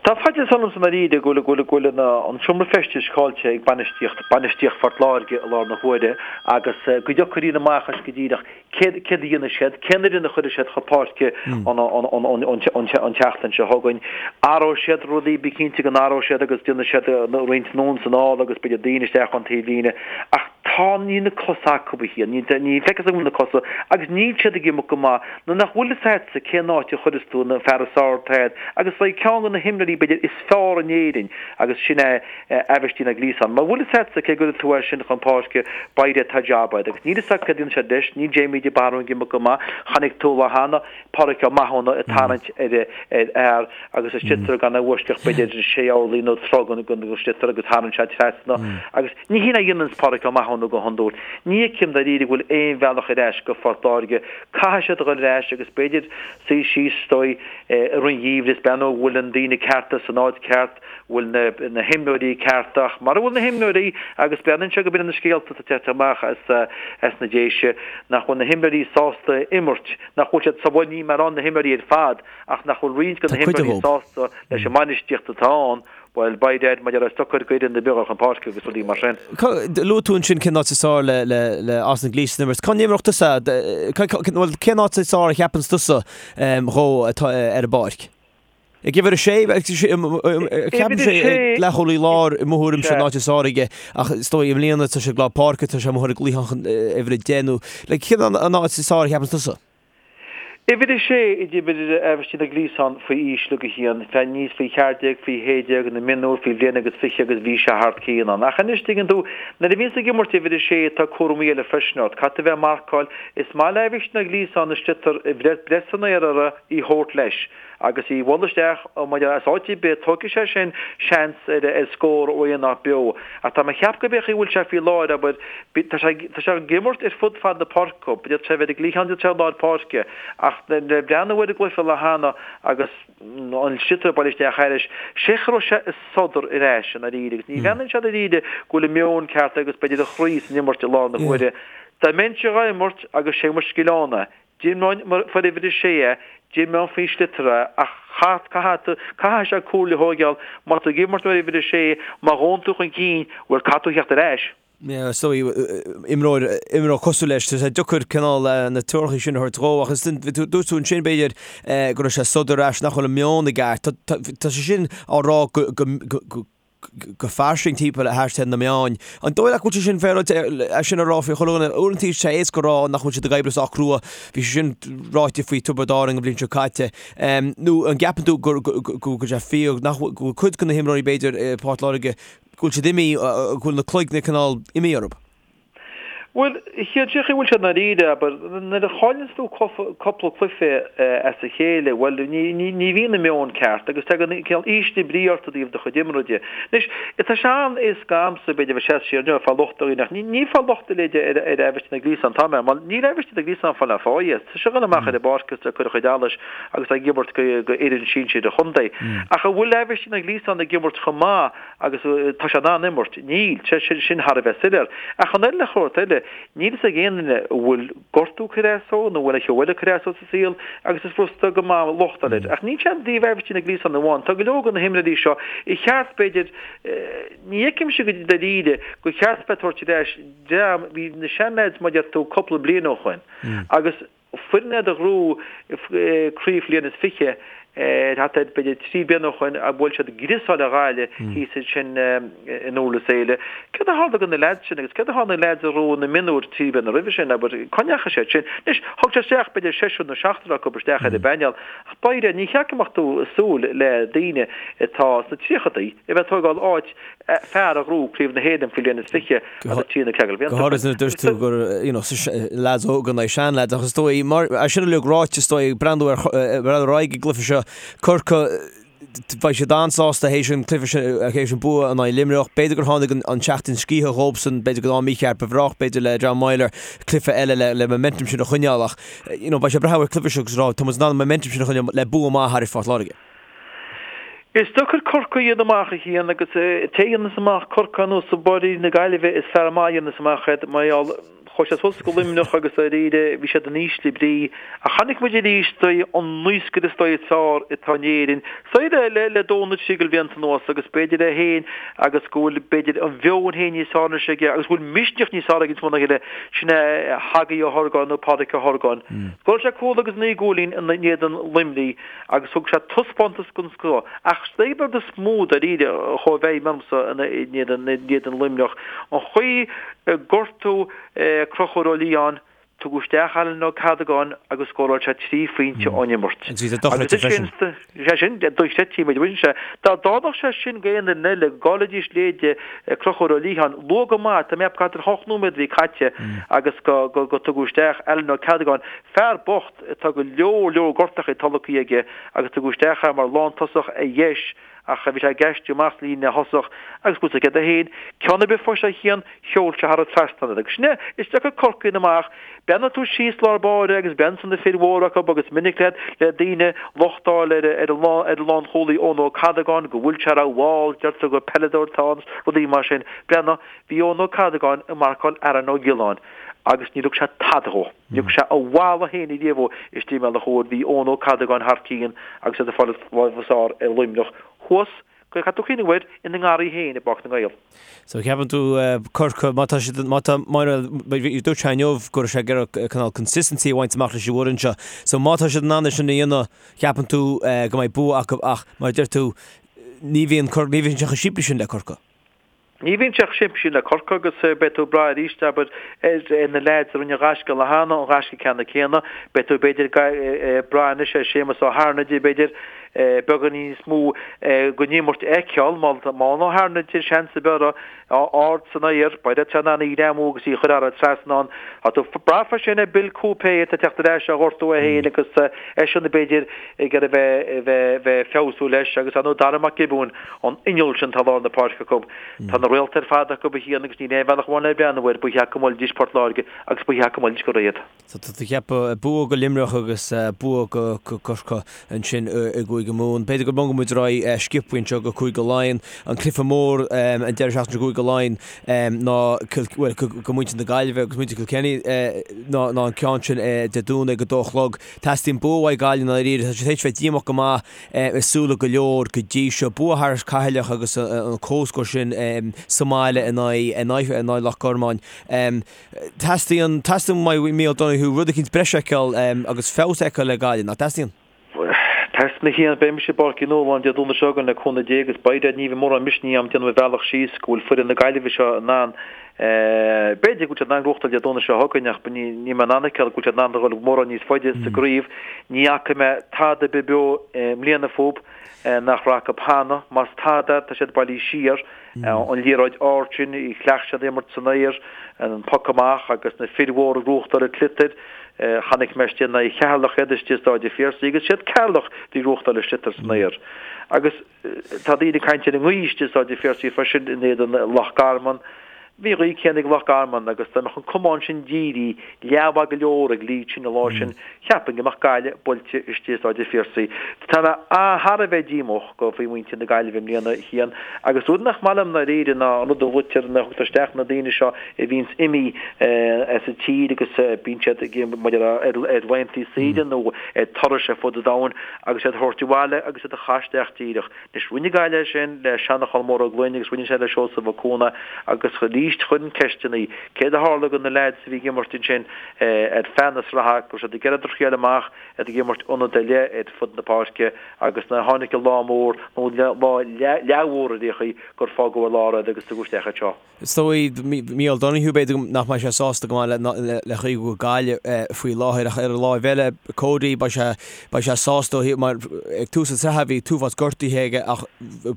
Tá faitíos ormsa i ndáiríre go bhfuil go bhfuil an seomra feistis caillte ag bainistíocht bainistíocht Phort Láirge i láthair na huaire agus go dtiocfaidh rian amach as go díreach céard céard a dhéanfaidh siad, cén fhoireann a chuirfidh siad chun páirce an an tseachtain seo chugainn. Athróidh siad rudaí, bí cinnte go n-athróidh siad agus déanfaidh siad roinnt anonn is anall agus b'fhéidir daoine isteach ón taobhlíne ach tá níl na cosa acu a Chian, ní ní feictear go bhfuil na cosa agus níl siad ag imirt go maith. Nuair nach bhfuil fhios a'dsa cén áit a chuireas tú an fear is fearr atá a'd agus beidh ceann de na himreoirí b'fhéidir is fearr in Éirinn agus sin é Aibhistín Ó Gliasáin. Mura bhfuil fhios a'dsa cé gcuirfidh tú é sin chun páirce beidh tá jab a'd agus níl fhios a'd céard a dhéanfaidh siad leis, níl Jamie de Barún ag imirt go maith, chonaic tú lá cheana Pádraic Ó Mathúna ag tarraingt ar ar fhear agus an sliotar gan a bhfoisceacht b'fhéidir sé orlaí nó troigh den sliotar agus tharraing sé trasna agus Ní hin a dhéananns Pádraic Ó Mathúna go hiondúil. Ní fheicim dáiríre go bhfuil aon bhealach ar ais go Phort Láirge. Caithfidh siad a dhul ar ais agus b'fhéidir suí síos is dóigh i rith an gheimhridh is breathnú an bhfuil na daoine cearta san áit ceart, bhfuil na na himreoirí cearta ach mara bhfuil na himreoirí agus breathnaíonn sé go b'in na scéalta atá ag teacht amach as as na Déise nach bhfuil na himreoirí sásta imirt, nach bhfuil siad sa bhuel níl mé ag rá na himreoirí ar fad ach nach bhfuil roinnt de na himreoirí sásta leis an mbainistíocht atá ann Bhuel, by dad, maidir le socair go fhoireann na beaga chun páirce agus rudaí mar sin. Luaigh tú ansin cén áit is fearr le Austin Gleeson imirt. Cá n-imreodh tusa? Bhuel, cén áit is fearr a cheapanns tusa dhó atá ar an bpáirc? Ag uimhir a sé? Ceapaim sé ag leathchúlaí láir i mo thuairimse an áit is fearr aige ach is dóigh i mbliana tá sé ag lár páirce, tá sé amuigh ar an gcliathán uimhir a 10 nó cén an áit is fearr a cheapanns tusa? Uimhir a sé a d'imir Aibhistín Ó Gliasáin faoi aois uilig a Chian, fé aníos faoi cheathair déag, faoi shé déag, na mionúir, faoi bhliain agus 20 agus bhí sé thar cionn ann. Ach anois, tuigeann tú, nuair a bhíonns ag imirt uimhir a sé tá cúramaí eile freisin ort. Caithfidh tú a bheith ag marcáil. Is maith le Aibhistín Ó Gliasáin an sliotar a bhreith san aer air í thabhairt leis. Agus í bhualadh isteach maidir as áit ar bith, tógfaidh sé sin seans ar ar scór ó aon áit beo. Ach tá mé ag ceapadh go b'fhéidir bhfuil sé faoi láthair, abair, tá sé tá sé ag imirt ar fud fad na páirce, d'fhéadfadh sé a bheith ar an gcliathán, d'fhéadfadh sé i lár páirce. Ach le breathnú ar an gcluiche lá cheana agus an sliotar ag baile isteach thairis, sé cha raibh sé ag sodar ar ais i ndáiríre agus ní bhreathnaíonn sé dáiríre go bhfuil an meon ceart agus b'fhéidir an chroí san imirt i láthair na huaire. Dá mbeinnse dhá imirt agus sé mo scil ann é, D'imreoinn mar uimhir a sé é, d'imreoinn faoin sliotar é, ach chaith, caithfidh, caithfidh sé comhairle a thóigeáil, má tá tú ag imirt mar uimhir a sé, má ghabhann tú chun cinn, bhuel, caithfidh tú theacht ar ais. Yeah, is dóigh, imreoir, imreoir cosúil leis, tá sé deacair cineál na treoracha sin a thabhairt dhó, ach is, dúirt tú ansin, b'fhéidir, go raibh sé ag sodar ar ais, nach bhfuil an meon i gceart. Tá, tá, tá sé sin á rá go, go, go, go fairsing timpeall thart ar na meáin. An dóigh leat go bhfuil sé sin féaráilte é sin a rá faoi chuile dhuine? Uaireanta tá sé éasca a rá nach bhfuil siad ag oibriú sách crua, bhí sé sin ráite faoi Tiobraid Árann an bhliain seo caite. Nó an gceapann tú go bhfuil sé fíor nach bhfuil, go bhfuil cuid de na himreoirí b'fhéidir i Port Láirge, go bhfuil siad imithe, go bhfuil na cloigne cineál imithe orthu? Bhuel, cén chaoi a bhfuil sé i ndáiríre, abair, nuair a chailleanns tú cúpla cluiche as a chéile, bhuel, ní bhíonn an meon ceart agus tagann cineál ísle brí ort i dtaobh do chuid imeartha de. Anois, tá sé an-éasca a'msa, b'fhéidir, a bheith ag seasamh siar inniu ag fáil locht ar dhaoine ach ní ag fáil locht a leithéid ar Aibhistín Ó Gliasáin atá mé, mar níl Aibhistín Ó Gliasáin ag fáil aon pháighe. Tá sé ag dul amach ar an bpáirc agus ag cur a chuid allais agus ag imirt go fhoireann sinsir an chontae. Ach an bhfuil Aibhistín Ó Gliasáin ag imirt chomh maith Agus tá sé in ann imirt? Níl. Sé sin thar a bheith soiléir. Ach an eile shórt eile, níl fhios ag aon duine an bhfuil gortú ag cur as dó nó an bhfuil aon cheo eile ag cur as dó sa saol agus is furasta go maith locht a fháil air. Ach níl sé i dtaobh Aibhistín Ó Gliasáin amháin. Tá go leor de na himreoirí seo ar cheart, b'fhéidir, ní fheicimse go dáiríre gur cheart bheith ag tabhairt ar ais dream, bhí na seanleaids mar a deir tú cúpla bliain ó shoin agus Foireann iad a ghnóthaigh craobh bhliain is 20 thart ar b'fhéidir 3 bliana ó shoin a bhuail siad griosáil ar Ghaillimh thíos ansin in Durlas Éile. Céard a tharla do na leaids sin agus céard a tharla do na leaids a ghnóthaigh na mionúir 3 bliana roimhe sin, abair, cá ndeachaigh siad sin? Anois, thug sé isteach b'fhéidir seisear nó seachtar acu isteach ar an bpainéal ach dáiríre ní cheart go mbeadh tú ag súil le daoine atá sna tríochadaí a bheith ag tógáil áit fear a ghnóthaigh Craobh na hÉireann faoi bhliain is 20 agus trí nó ceathair Go háirithe nuair a dúirt tú gur you know leaids óga in aghaidh seanleaids ach is dóigh mar é sin uilig ráite is dóigh breathnú ar breathnú ar aghaidh ag an gcluiche seo Corcaigh beidh siad an-sásta théis an cluiche sin théis an bua in aghaidh Luimneach. B'fhéidir gur tháinig an tseachtain scíthe dhóibhsan, b'fhéidir go mícheart ba bhreá b'fhéidir le John Meyler cluiche eile le le momentum sin a choinneáil ach you know beidh sé ag breathnú ar an cluiche seo agus rá tá muid in ann an momentum sin a choinneáil le bua maith thar Phort Láirge. Is deacair Corcaigh a dhéanamh amach a Chian agus té a dhéanas amach Corcaigh anuas i bPáirc na Gaillimhe is fear maith a dhéanas amach iad mar gheall chuaigh siad suas go Luimneach agus dáiríre bhí siad in ísle brí ach chonaic muid arís dóigh an naoscaire is dóigh is fearr atá in Éirinn is dóigh le le dó nó trí de bhlianta anuas agus b'fhéidir é féin agus go bhfuil b'fhéidir an mheon féin níos fearr anois aige agus go bhfuil misneach níos fearr aige níos mó ná a chéile sin é Hagaí Ó hOrgáin nó Pádraic Ó hOrgáin. Scóráil sé cúl agus 9 gcúilín in éadan Luimnigh agus thug sé taispeántas den scoth. Ach is é an rud is mó dáiríre a chuaigh i bhfeidhm ormsa in éadan Luimneach, an chaoi ar gortaíodh Conchúr Ó Liatháin, tugadh isteach Alan Ó Cadagáin agus scóráil sé 3 phointe ón imirt. Agus bhí sé dochreidte freisin. Sé sin, dochreidte, muid bhain sé. Dá dtarlódh sé sin go aon fhoireann eile, go gcaillfidís leithéide Conchúr Ó Liatháin, luath go maith, tá mé ag ceapadh thart ar hocht nóiméad a bhí caite agus go dtugadh isteach Alan Ó Cadagáin, fear bocht, Tá go leor leor gortachaí tolgtha aige agus tugadh isteach é mar lántosach ar dheis ach bhí sé ag aistriú amach sa líne thosach agus bhfuil 'fhios agat féin, ceann ar bith fós a Chian, sheol sé thar an trasnán iad. Agus sin é, is deacair Corcaigh a dhéanamh amach. Breathnaíonn tú síos lár báire agus breathnaíonn tú na fir mhóra acu agus minic le le daoine locht a fháil ar ar an ar an lánchúlaí Eoin Ó Cadagáin go bhfuil sé rómhall, deirtear gur peileadóir atá ann, rudaí mar sin. Breathnaigh, bhí Eoin Ó Cadagáin ag marcáil Aaron Ó Giolláin agus níor thug sé tada dhó. Ní thug sé a mhala féin ariamh dhó istigh i mbealach úr. Bhí Eoin Ó Cadagáin thar cionn agus iad ag fáil an lámh is fearr ar Luimneach thuas, caithfidh tú cuimhneamh air, ina ngarraí féin i bPáirc na nGael. So ceapann tú Corcaigh, má tá siad, má tá, má, dúirt sé inniu go raibh sé ag iarraidh cineál consistency a bhaint amach leis an bhfoireann seo. So má tá siad in ann é sin a dhéanamh, ceapann tú go mbeidh bua acu ach mar a deir tú, ní bhíonn, ní bhíonn sé chomh simplí sin le Corcaigh. Ní bhíonn sé chomh simplí sin le Corcaigh agus beidh tú ag brath arís, abair, ar na leaids a rinne an ghaisce an lá cheana, an gaisce ceannann céanna. Beidh tú, b'fhéidir, ag brath anois ar Séamus Ó hAirnide, b'fhéidir, beagáinín níos mó den imirt a fheiceáil. Má tá Ó hAirnide seans ar bith ard san aer, beidh sé in ann í a ghreamú agus í a chur thar an trasnán. Tá tú ag brath freisin ar Bill Coupe atá ag teacht ar ais ó ghortú é féin agus eisean, b'fhéidir, ag iarraidh bheith, bheith, bheith feabhsú leis agus ar ndóigh Dara Mac Giobúin, An inneall sin atá i lár na páirce acu. Tá na réalta ar fad acu a Chian agus níl aon bhealach amháin le breathnú air, ba cheart go mbuailfidís Port Láirge agus ba cheart go mbuailfidís go réidh iad. So tá tú ag ceapadh bua go Luimneach agus bua go Corcaigh ansin i gCúige Mumhan. B'fhéidir go mbogfaidh muid ar aghaidh sciobtha anseo go Cúige Laighean. An cluiche mór an deireadh seachtaine i gCúige Laighean ná bhuel go muintir na Gaillimhe agus muintir Kilkenny ná an ceann sin Dé Domhnaigh ag a dó a chlog. Teastaíonn bua uaidh Gaillimh i ndáiríre. Tá siad théis bheith díomách go maith i súile go leor go dtí seo. Bua thar Cheatharlach agus an comhscór sin sa mbaile in aghaidh Loch Garman. Teastaíonn, teastaíonn uaidh Micheál Donoghue rud eicínt breise a fheiceáil agus feabhas a fheiceáil le Gaillimh, nach dteastaíonn? Teastaíonn a Chian, beidh mise i bPáirc Uí Nualláin Dé Domhnaigh seo chugainn le cúnamh Dé agus beidh ní bheidh mórán misnigh agam déanamh mo bhealach síos go bhfuil foireann na Gaillimhe seo in ann B'fhéidir go bhfuil siad in ann gnóthachtáil Dé Domhnaigh seo chugainn ach níl mé in ann a fheiceáil go bhfuil siad in ann a dhul mórán níos faide sa gcraobh. Ní fhaca mé tada ar bith beo i mbliana fúb. Nach raibh acu cheana. Más tada, tá siad bailithe siar. An liathróid ard sin, chleacht siad imirt san aer, an poc amach agus na fir mhóra ag gnóthachtáil an tsliotair. Chonaic mé istigh in aghaidh Cheatharlach iad istigh i Stáid an Phiarsaigh agus siad Ceatharlach a bhí ag gnóthachtáil an tsliotair san aer. Agus tá daoine ag caint ar an ngaoth istigh i Stáid an Phiarsaigh freisin in éadan Loch Garman. Bhí an ghaoth céanna ag Loch Garman agus dá mbeadh an camán sin dírithe leathmhaith go leor ag leaid sin an lá sin, cheapfainn go mbeadh Gaillimh buailte istigh i Stáid an Phiarsaigh. Tá mé thar a bheith díomách go faoi mhuintir na Gaillimhe i mbliana, a Chian, agus rud nach maith liom ndáiríre ná an rud a luaitear nuair a thugtar isteach na daoine seo a bhíonns imithe as an tír agus bíonn siad ag mar ar laethanta saoire nó ar turais ar fud an domhain agus iad a thabhairt abhaile agus iad a chaitheamh isteach díreach. Anois, rinne Gaillimh é sin le Seanchán Mór Ó Gloinn agus rinne sé le Seosamh Ó Cuana agus arís chuirfinn ceisteanna, céard a tharla do na leaids a bhí ag imirt ansin ar feadh na sraithe, go raibh siad ag iarraidh a thriail amach, iad ag imirt ionad ar leith ar fud na páirce agus nuair a tháinig an lá mór nó lá leathmhór ar aon chaoi gur fágadh ar lár iad agus tugadh isteach iad seo. Is dóigh, Mícheál Donoghue, b'fhéidir nach mbeidh sé sásta go maith le chaoi go bhfuil Gaillimh faoi láthair ach ar an láimh eile, Cody, beidh sé, beidh sé sásta ó thaobh, mar ag tús an tsraithe bhí t-uafás gortuithe aige ach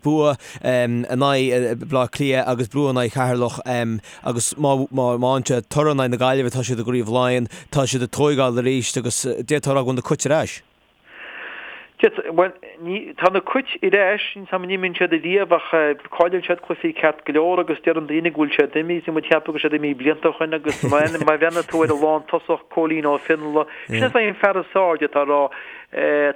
bua in aghaidh Baile Átha Cliath agus bua in aghaidh Cheatharlach agus má, má, má fhaigheann siad toradh in aghaidh na Gaillimhe tá siad i gCraobh Laighean, tá siad ag tóigeáil arís agus d'fhéadfá a rá go bhfuil na Cait ar ais. Bhuel, ní, tá na Cait ar ais, níl 's a'm an imíonn siad ariamh ach cailleann siad cluichí ceart go leor agus deireann daoine go bhfuil siad imithe, bhí muid ag ceapadh go raibh siad imithe blianta ó shoin agus má bhreathnaíonn tú ar an lántosach Cóilín Ó Fionnghaile, sin é an fear is fearr d'fhéadfá a rá,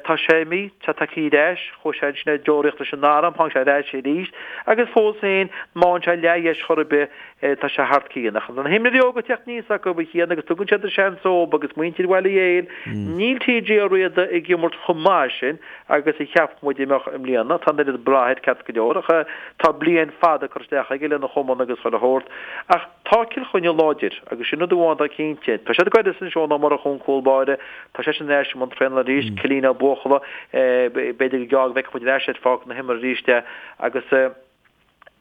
tá sé imithe, tá tagtha ar ais, chuaigh sé ansin ar deoraíocht leis an arm, tháinig sé ar ais arís agus fós féin, má fhaigheann sé leathdheis chor ar bith, Tá sé thart cionn. Ach na himreoirí óga ag teacht aníos acu, a Chian, agus tugann siad an seans dóibh agus muintir Bhaile Héil, níl TJ Ó Riada ag imirt chomh maith sin agus a cheap muid a mbeadh i mbliana. Tá an oiread brath air ceart go leor ach tá bliain fada curtha isteach aige lena chumann agus chuile shórt. Ach tá Cill Chainnigh láidir agus sin rud amháin atá cinnte. Tá siad ag éirí as Seán Ó Murchú an cúl báire, tá seisean ar ais i mbun traenála arís, Cillian Ó Buachalla, b'fhéidir go gearr go bhfeicfidh muid ar ais ar pháirc na himeartha arís é agus.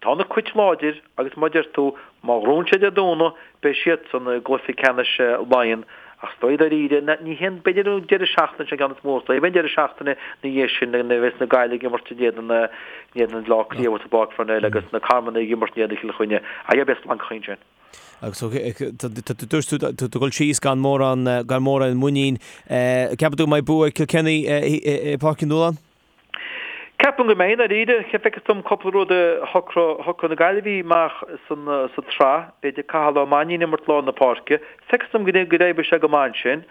Tá na Cait láidir agus mar a deir tú, má ghnóthaíonn siad Dé Domhnaigh, beidh siadsan i gcluiche ceannais Laighean. Ach is dóigh dáiríre, ní hé an, b'fhéidir an deireadh seachtaine sin an ceann is mó, is dóigh, beidh an deireadh seachtaine ina dhiaidh sin nuair a bheas na Gaillimh ag imirt in éadan, in éadan Bhaile Átha Cliath i bPáirc Pharnell agus na Carmannaigh ag imirt in éadan Chill Chainnigh. Ach beidh splancacha ansin. Agus dúirt tú, tá tú ag dul síos gan mórán, gan mórán muinín. Ceapann tú go mbeidh bua ag Kilkenny i bPáirc Uí Nualláin? Ceapaim go mbeidh, dáiríre. Feictear dom cúpla rud a shocródh na Gaillimhigh amach sa tsraith. B'fhéidir Cathal Ó Mainnín ag imirt lár na páirce. Feictear dom go n-oibreoidh sé go maith ansin.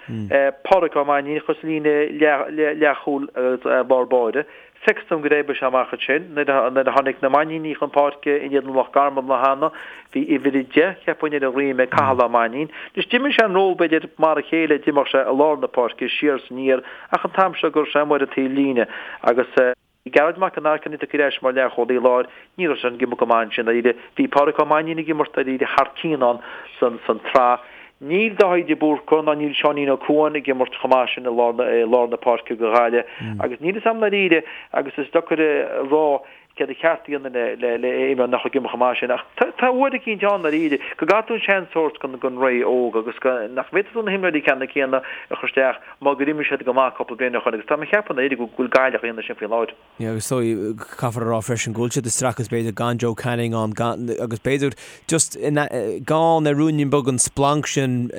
Pádraic Ó Mainnín a chur sa líne leathchúil agus lár báire. Feictear dom go n-oibreoidh sé amach ansin. Nuair a tháinig na Mainnínigh chun páirce in éadan Loch Garman lá cheana, bhí uimhir 10, cheapfainn, ar a dhroim ag Cathal Ó Mainnín. Anois d'imir sé an ról b'fhéidir mar a chéile, d'imir sé i lár na páirce, siar is aniar, Ach an t-am seo go raibh sé amuigh ar an taobh líne agus Gearóid Mac an Airchinnigh tagtha ar ais mar leathchúlaí láir, ní raibh sé ag imirt go maith ansin dáiríre. Bhí Pádraic Ó Mainnín ag imirt dáiríre thar cionn ann san tsraith. Níl Dáithí de Búrca ná níl Seáinín Ó Cuain ag imirt chomh maith sin i lár na páirce do Ghaillimh agus níl 'fhios a'm dáiríre agus is deacair a rá céard ba cheart a dhéanamh le le imreoir nach ag imirt chomh maith sin ach tá uair eicínt ann dáiríre go gcaithfidh tú an seans a thabhairt don ré óg agus go nach bhféadfaidh tú na himreoirí ceannann céanna a chur isteach má gur imir siad go maith cúpla bliain ó shoin agus tá mé ag ceapadh dáiríre go bhfuil Gaillimh á dhéanamh sin faoi láthair. Yeah, agus is dóigh, caithfear a rá freisin go bhfuil siad ag streachailt b'fhéidir gan Joe Canning ann gan agus b'fhéidir just gan ar ruainnín beag an splanc sin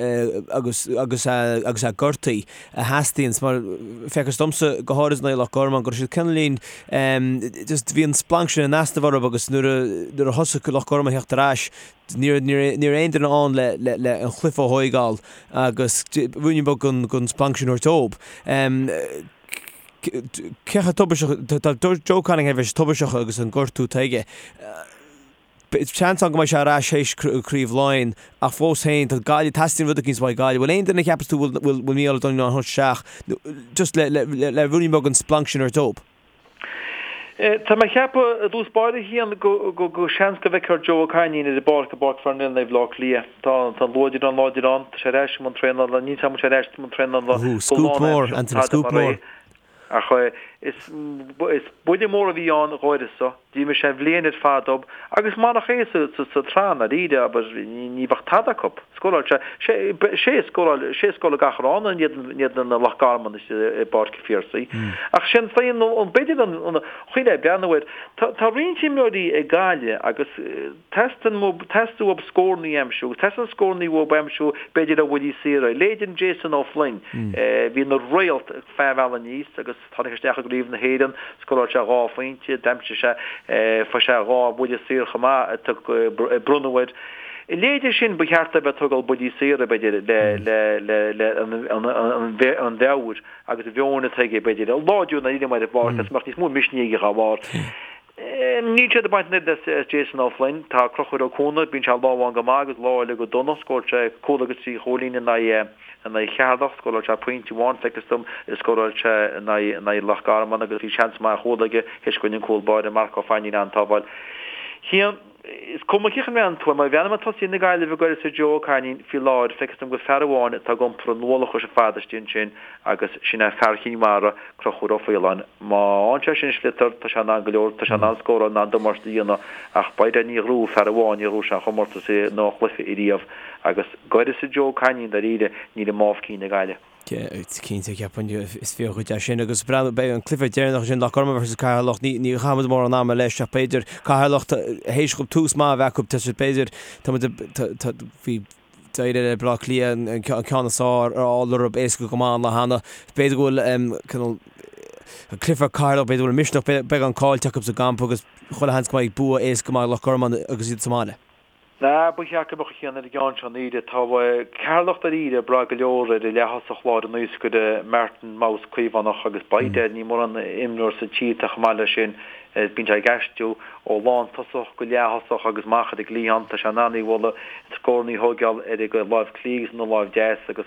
agus agus agus é gortaithe. a theastaíonns mar feictear domsa go háirid in aghaidh Loch Garman go raibh siad cineáilín just bhí an splanc sin in easnamh orthu agus nuair a nuair a thosaigh Loch Garman a theacht ar ais ní raibh ní raibh ní raibh aon duine ann le le le an cluiche a thóigeáil agus ruainnín beag den den splanc sin a thabhairt dóibh. Cé chomh tubaisteach tá Joe Canning thar a bheith tubaisteach agus an gortú atá aige. Seans ann go mbeidh sé ar ais théis Craobh Laighean ach fós féin, tá Gaillimh, teastaíonn rud eicínt uaidh Gaillimh. Bhfuil aon duine a cheapas tú bhfuil bhfuil Mícheál O'Donoghue in ann a thabhairt isteach just le le le ruainnín beag an splanc sin a thabhairt dóibh? Tá mé ag ceapadh i dtús báire a Chian go go go seans go bhfeicfear Joe Ó Cainín ar an bpáirc i bPáirc Pharnell in aghaidh Bhaile Átha Cliath. Tá tá an luaidreán láidir ann, tá sé ar ais i mbun traenála, níl 's agam an bhfuil sé ar ais i mbun traenála go Scúp mór, lán-aimseartha, Anthony, tada scúp mar é. mór. Ach. Is buille mór a bhí ann dh'uireasa. D'imir sé an bhliain ar fad dóibh agus marach é sa tsraith i ndáiríre, abair, ní bheadh tada acu. Scóráil sé, sé a scóráil, sé a scóráil gach rán in éadan Loch Garman i bPáirc an Phiarsaigh. Ach sin féin, b'fhéidir an chaoi le breathnú air, tá roinnt imreoirí ag Gaillimh agus teastaíonn uathu scórannaí a aimsiú agus teastaíonn scórannaí uathu a aimsiú b'fhéidir ó bhuillí saora. Leithéid Jason O'Flynn, bhí ina réalt feadh an bhealaigh aníos agus Tháinig isteach i gCraobh na hÉireann, scóráil sé 2 phointe, d'aimsigh sé, fuair sé 2 bhuille saor chomh maith a bronnadh air. A leithéide sin ba cheart dó bheith ag tógáil buillí saora, b'fhéidir, le, le, le, le an, an, an, an mheabhair agus an mheon atá aige, b'fhéidir, a láidriú i ndáiríre mar ar bharr, agus mbeadh níos mó misnigh aige dá bharr. Níl siad ag baint an oiread as Jason O'Flynn. Tá Conchúr Ó Cuana, bíonn sé lá amháin go maith agus lá eile go dona. Scóráil sé cúl agus 3 chúilín in aghaidh in aghaidh Cheatharlach. Scóráil sé pointe amháin, feictear dom, scóráil sé in aghaidh in aghaidh Loch Garman agus bhí seans maith ar chúl aige théis go rinne an cúl báire Marc Ó Fainín an-tsábháil. Cian, Is cuma cén chaoi a mbreathnaíonn tú air, má bhreathnaím ar tosaithe na Gaillimhe d'uireasa Joe Ó Cainín faoi láthair, feictear dom gur fear amháin atá ag iompar an ualach ar fad istigh ansin agus sin é fear Chinn Mhara, Conchúr Ó Faoláin. Má fhaigheann sé sin sliotar, tá sé in ann go leor, tá sé in ann scóráil, in ann damáiste a dhéanamh ach by Dad ní ghnóthóidh fear amháin, ní ghnóthóidh sé an chomórtas nó an chluiche ariamh agus d'uireasa Joe Cainín dáiríre, níl i mámh cinn ag Gaillimh. Cinnte, ceapaim, is fíor dhuit é sin agus breathnú, beidh an cluiche deireanach sin Loch Garman versus Ceatharlach, ní ní chaithfimid mórán ama leis ach b'fhéidir Ceatharlach théis dhóibh tús maith a bheith acu, tá siad b'fhéidir, tá muid tá bhí d'éirigh le Baile Átha Cliath an ceann is fearr a fháil orthu éasca go maith an lá cheana. B'fhéidir go bhfuil cineál an cluiche Ceatharlach, b'fhéidir go bhfuil misneach beagán caillte acu sa gcampa agus chuile sheans go mbeidh bua éasca maith ag Loch Garman agus iad sa mbaile. Nah, ba cheart go mbeadh a chian ar an gceann seo i ndáiríre. Tá Ceatharlach dáiríre ag brath go leor ar a leath-thosach lár an naoscaire Martin Mouse Caomhánach agus by Dad níl mórán imreoir sa tír atá chomh maith leis sin. Bíonn sé ag aistriú ó lántosach go leath-thosach agus amach ar an gcliathán. Tá sé in ann í a bhualadh, scóranna a thóigeáil ar a láimh clí agus ina láimh deas agus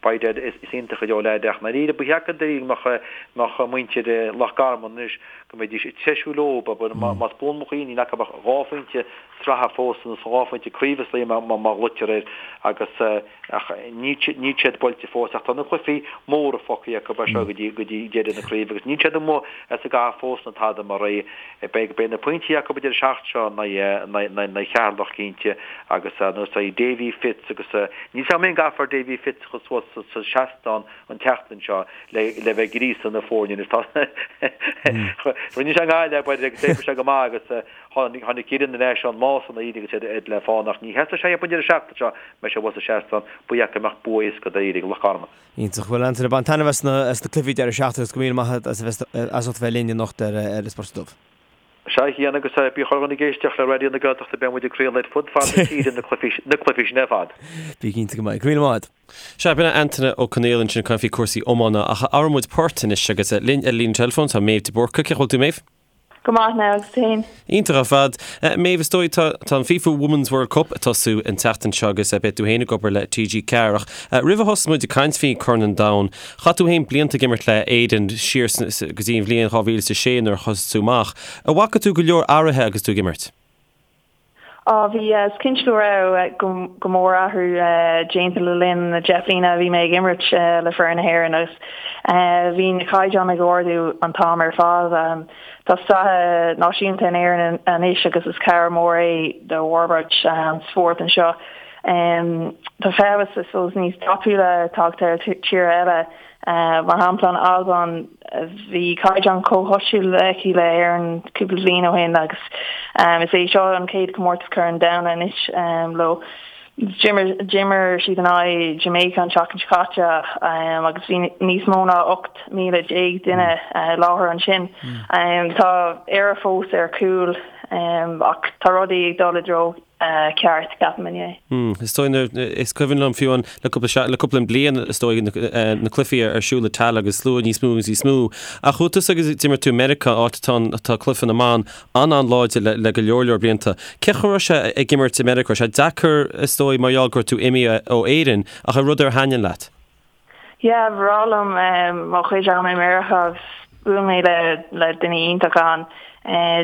by Dad is iontach go deo leaid ach i ndáiríre ba cheart go dáiríre go mbeadh muintir Loch Garman anois go mbeidís ag treisiú leo, más buan mo chuimhne níl acu ach 2 phointe sraithe fós nó 2 phointe craoibhe is dóigh má ghlaoitear air agus ach níl níl siad buailte fós ach tá na cluichí móra fágtha acu as seo go dtí go dtí deireadh na craoibhe agus níl siad amuigh as an gcath fós ná tada mar é beidh beidh na pointí acu an deireadh seachtaine seo in aghaidh Cheatharlach cinnte agus nó is Davy Fitz agus níl 's agam an gcaithfear Davy Fitz a chur suas sa seastán an tseachtain seo le le bheith ag gríosadh na foirne anois tá rinne sé i nGaillimh agus d'oibrigh sé go maith agus Tháinig Éirinn ar ais ón mbás ina dhiaidh agus iad le fán ach ní sheasfaidh sé an deireadh seachtaine seo, mbeidh sé abhus sa seastán, ba dheacair go mbeadh bua éasca dáiríre ag Loch Garman. Iontach. Bhuel Antaine, bain taitneamh as na as na cluichí deireadh seachtaine agus go míle maith agat as a bheith as ucht a bheith linn anocht ar ar an Spota Dubh. Sea, a Chian, agus bí chuile dhuine ag éisteacht le Raidió na Gaeltachta, beidh muid ag craoladh ar fud fad na tíre na cluichí na cluichí sin ar fad. Bí cinnte go mbeidh. Go míle maith agat. Sea, b'in é Antaine Ó Conaola ansin ag caint faoi cúrsaí iomána ach athróidh muid port anois agus linn ar líne teileafóin tá Méabh de Búrca. Cén chaoi a bhfuil tú Méabh? Go maith now agus tú féin? Iontach ar fad. Méabh, is dóigh tá tá an FIFA Women's World Cup ag tosú an tseachtain seo agus beidh tú féin ag obair le TG4 ach roimh a thosós muid ag caint faoi Corn an Domhain, chaith tú féin blianta ag imirt le Éirinn siar go dtí an bhliain 2006 nuair a thosaigh tú amach. An bhfaca tú go leor athruithe agus tú ag imirt? Á, bhí, is cinnte go raibh go mór athrú déanta le linn na 10 bliana a bhí mé ag imirt le foireann na hÉireann agus bhí na caighdeáin ag ardú an t-am ar fad. Tá sraith náisiúnta in Éirinn anois agus is cabhair mhór é do fhorbairt an spóirt anseo. Tá feabhas, I suppose, níos tapúla tagtha ar tíortha eile. Mar shampla, an Albain, bhí caighdeán comhchosúil aici le hÉirinn cúpla bliain ó shin agus is é seo an chéad chomórtas Corn an Domhain anois leo. D'imir siad in aghaidh Jamaica an tseachtain seo caite agus bhí níos mó ná 18,000 duine i láthair ansin. Tá Éire fós ar chúl ach tá rudaí ag dul i dtreo ceart, ceapaim inné. Is dóigh nuair, is cuimhin liom fiú an, le cúpla, le cúpla bliain is dóigh na, na cluichí ar siúl i Tallaght agus slua níos mó agus níos mó. Ach chuaigh tusa agus d'imir tú i Meiriceá, áit atá an, atá cluiche na mban an-an-láidir le, le go leor leor blianta. Cén chaoi a raibh sé ag imirt i Meiriceá? Raibh sé deacair is dóigh mar gheall go raibh tú imithe ó Éirinn ach an rud ar thaitin leat? Yeah, ba bhreá liom mo chuid ama i Meiriceá agus. bhuail mé le le daoine iontacha ann.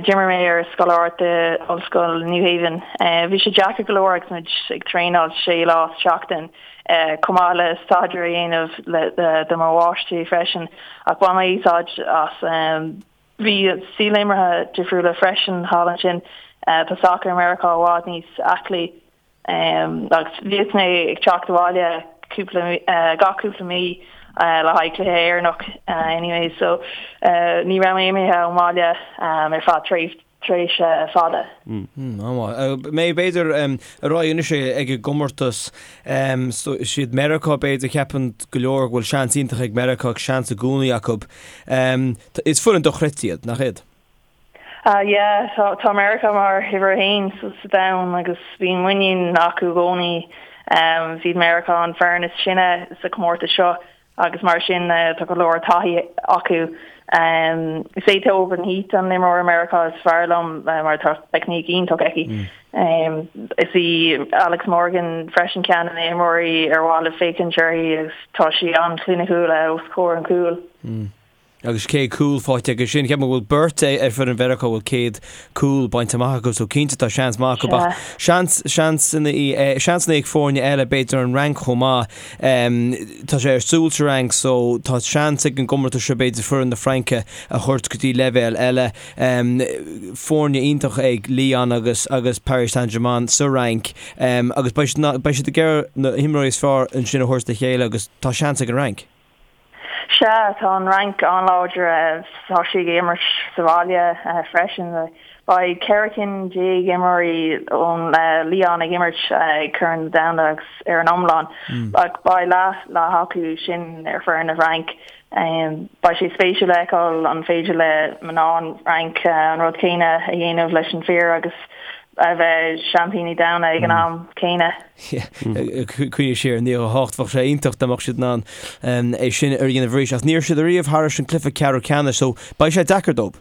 D'imir mé ar scoláireacht i Ollscoil New Haven. Bhí sé deacair go leor agus muid ag traenáil sé lá sa tseachtain, chomh maith le staidéar a dhéanamh le do mo mháistrí freisin, ach bhain mé úsáid as. Bhí stíl imeartha difriúla freisin thall ansin. Tá sacar i Meiriceá i bhfad níos aclaí. Agus bhíodh mé ag teacht abhaile cúpla, gach cúpla mí le haghaidh cluiche Éireannach anyway so ní raibh mé imithe ón mbaile ar feadh tréimhse fada. An-mhaith. B'fhéidir ar aghaidh anois ag an gcomórtas, siad Meiriceá b'fhéidir, ceapann go leor go bhfuil seans iontach ag Meiriceá agus seans i gcónaí acu. Is foireann dochreidte iad, nach iad? Ah yeah, tá tá Meiriceá mar uimhir a haon sa sa domhan agus bíonn muinín acu i gcónaí. Is iad Meiriceá an foireann is sine sa chomórtas seo agus mar sin tá go leor taithí acu. Is é Tobin Heath an imreoir Meiriceá is fearr liom mar tá teicníc iontach aici. Is í Alex Morgan freisin ceann de na himreoirí ar mhaith libh féachaint uirthi agus tá sí an-chliniciúil os comhair an chúil. Agus 100 cúl faighte aige sin. Ceapaim go bhfuil beirt ar foireann Mheiriceá a bhfuil 100 cúl bainte amach acu so cinnte tá seans maith acu ach seans, seansanna, seansanna ag foirne eile, b'fhéidir an Fhrainc chomh maith. Tá sé ar siúl sa Fhrainc so tá seans ag an gcomórtas seo b'fhéidir foireann na Fraince a thabhairt go dtí leibhéal eile. Foirne iontach ag Lyon agus agus Paris Saint-Germain sa Fhrainc agus beidh siad, beidh siad ag iarraidh na himreoirí is fearr ansin a thabhairt le chéile agus tá seans ag an Fhrainc. Sea, tá an Fhrainc an-láidir. Tá sí ag imirt sa bhaile freisin. Beidh 14 cinn imreoirí ón Lyon ag imirt ag Corn an Domhain agus ar an iomlán. Ach beidh leath leath acu sin ar foireann na bhFrainc. Beidh sé spéisiúil a fheiceáil an féidir le mná an Fhrainc an rud céanna a dhéanamh leis an fir agus a bheith seaimpíní domhanda ag an am céanna. Cuimhnigh siar ar 98, bheadh sé iontach dá mbeadh siad in ann é sin a dhéanamh arís. Ach ní raibh siad ariamh thairis an cluiche ceathrú ceannais so beidh sé deacair dóibh.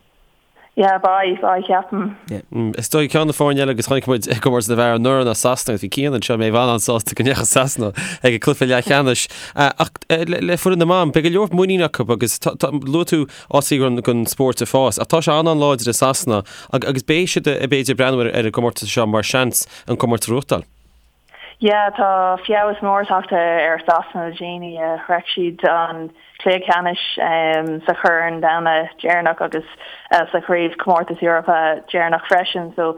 Yeah, beidh, beidh, ceapaim. Is dóigh ceann de na foirne eile agus chonaic muid i gcomórtas na bhfear anuraidh ná Sasana agus bhí Cian anseo Méabh an-sásta go ndeachaigh Sasana ag an cluiche leathcheannais. Ach le foireann na mban, beidh go leor muinín acu agus luaigh tú áit don spórt ag fás ach tá sé an-an-láidir i Sasana agus beidh siad b'fhéidir ag breathnú ar an gcomórtas seo mar seans an comórtas a ghnóthachtáil. Yeah, tá feabhas mór tagtha ar Sasana le déanaí. Shroich siad an cluiche ceannais sa Chorn Domhanda deireanach agus sa Chraobh Comórtas Eorpa deireanach freisin. So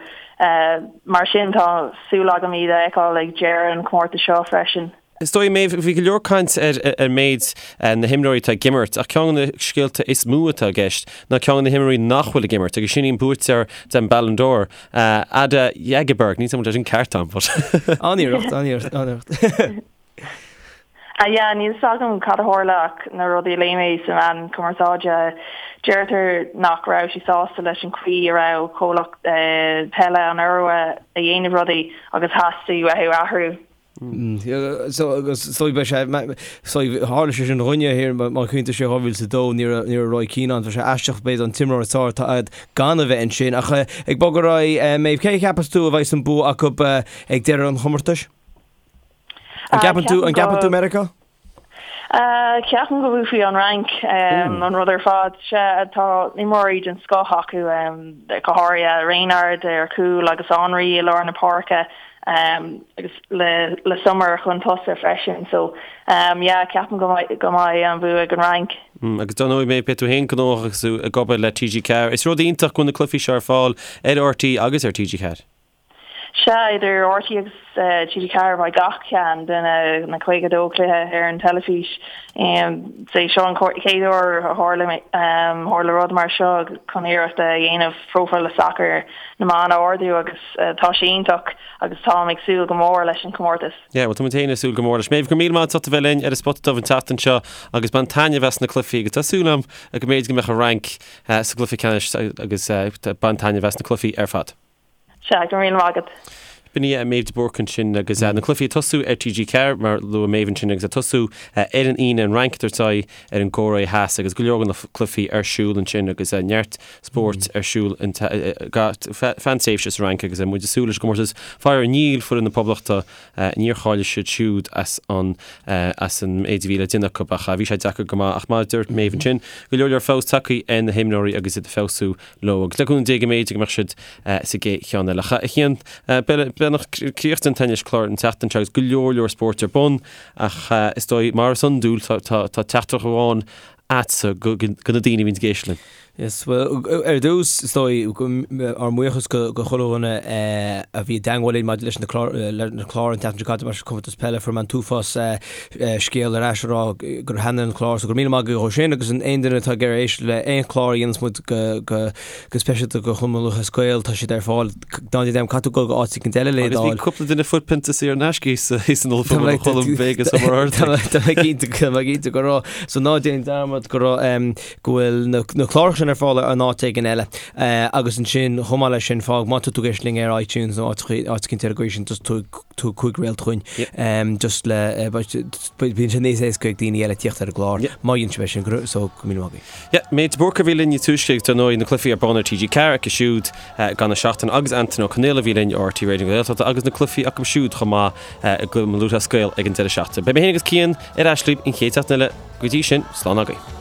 mar sin tá súil agam iad a fheiceáil ag deireadh an chomórtais seo freisin. Is dóigh, Méabh, bhí go leor caint ar ar méid na himreoirí atá ag imirt, ach ceann de na scéalta is mó atá i gceist ná ceann de na himreoirí nach bhfuil ag imirt, agus sin í an buaiteoir den Ballon d'Or, Ada Hegerberg. Níl 's agam an bhfuil sé sin ceart agam, but. An-iarracht, an-iarracht, an-iarracht. Ah yeah, níl 's agam cad a tharla ach na rudaí a léigh mé sa meán cumarsáide, deirtear nach raibh sí sásta leis an chaoi a raibh comhlacht peile an Iorua a dhéanamh rudaí agus theastaigh uathu athrú. So agus so beidh sé so tharla sé sin dhúinne thiar má chuimhníonn tú siar 2002 ní raibh ní raibh Roy Keane ann bheadh sé aisteach b'fhéidir an t-imreoir is fearr atá agat gan a bheith ansin ach ag bogadh ar aghaidh Méabh cé a cheapas tú a bheidh an bua acu ag deireadh an chomórtais? An gceapann tú an gceapann tú Meiriceá? Ceapaim go mbuafaidh an Fhrainc an rud ar fad. Sea, tá imreoirí den scoth acu, go háirithe Renard ar chúl agus Henry i lár na páirce agus le Le Sommer chun tosaigh freisin. So, yeah, ceapaim go mbeidh an bua ag an Fhrainc. Agus dar ndóigh, beidh tú féin gnóthach agus tú ag obair le TG4. Is rud iontach go bhfuil na cluichí seo ar fáil ar RTÉ agus ar TG4. Sea, idir RTÉ agus TG4 beidh gach ceann de na 52 cluiche ar an teilifís. Is é seo an chéad uair a tharla rud mar seo chun iarracht a dhéanamh próifíl sacair na mban a ardú agus tá sé iontach agus táim ag súil go mór leis an chomórtas. Yeah, bhuel tá muid féin ag súil go mór leis. Méabh, go raibh míle maith agat as ucht a bheith linn ar an Spota Dubh an tseachtain seo agus bain taitneamh as na cluichí agus tá súil agam go mb'fhéidir go mbeadh an Fhrainc sa gcluiche ceannais agus bain taitneamh as na cluichí ar fad. Sea, go raibh míle maith agat. B'in í Méabh de Búrca ansin agus na cluichí ag tosú ar TG4 mar luaigh Méabh ansin agus ag tosú ar an Aoine an Fhrainc ag tabhairt aghaidh ar an gCóiré Theas agus go leor de na cluichí ar siúl ansin agus neart spóirt ar siúl feadh an tréimhse sa Fhrainc agus muid ag súil leis an gcomórtas. Faraor níl foireann na Poblachta, níor cháiligh siad siúd as an as an méid a bhí le déanamh acu ach bhí sé deacair go maith ach mar a dúirt Méabh ansin, go leor leor feabhas tagtha ar na himreoirí agus iad ag feabhsú leo agus le cúnamh Dé go mb'fhéidir go mbeadh siad sa gcéad cheann eile. A Chian, beagnach críochnaithe againn leis an chlár an tseachtain seo agus go leor leor spóirt ar bun ach is dóigh mar is iondúil tá teachtaireacht amháin agatsa do na daoine a bhíonn ag éisteacht linn. Yes, well, ar dtús, is dóigh, ár mbuíochas go chuile dhuine a bhí i dteangmháil linn maidir leis na cláir an tseachtain seo caite, mar chomórtas peile, fuair mé an t-uafás scéal ar ais a rá gur thaitnigh an clár so go raibh míle maith agaibh dhó sin agus aon duine atá ag iarraidh éisteacht le aon chlár a dhéanas muid go speisialta do Chumann Lúthchleas Gael tá siad ar fáil ná déan dearmad caithfidh tú dul go áit éicint eile le Agus bhí cúpla duine fuair pionta saor in aisce thíos san ollphuball ó Cholm Vegas ó Mhuir Tá mé cinnte tá mé cinnte go raibh so ná déan dearmad go raibh go bhfuil na cláracha sin ar fáil in áit éigin eile agus ansin chomh maith leis sin fág má tá tú ag éisteacht linn ar iTunes nó áit éicint ar an gcaoi sin just tabhair tabhair 5 réalt chugainn just le bíonn sé níos éasca ag daoine eile tíocht ar an gclár má dhéanann sibh é sin so go míle maith agaibh. Yeah, Méabh de Búrca a bhí linn níos túisce agus dar ndóigh na cluichí ar bun ar TG4 acu siúd gan an seachtain agus Antain Ó Conaola a bhí linn ó RTÉ Raidió na Gaeltachta agus na cluichí acu siúd chomh maith i gCumann Lúthchleas Gael ag an deireadh seachtaine. Beidh mé féin agus Cian ar ais libh an chéad seachtain eile. Go dtí sin, slán agaibh.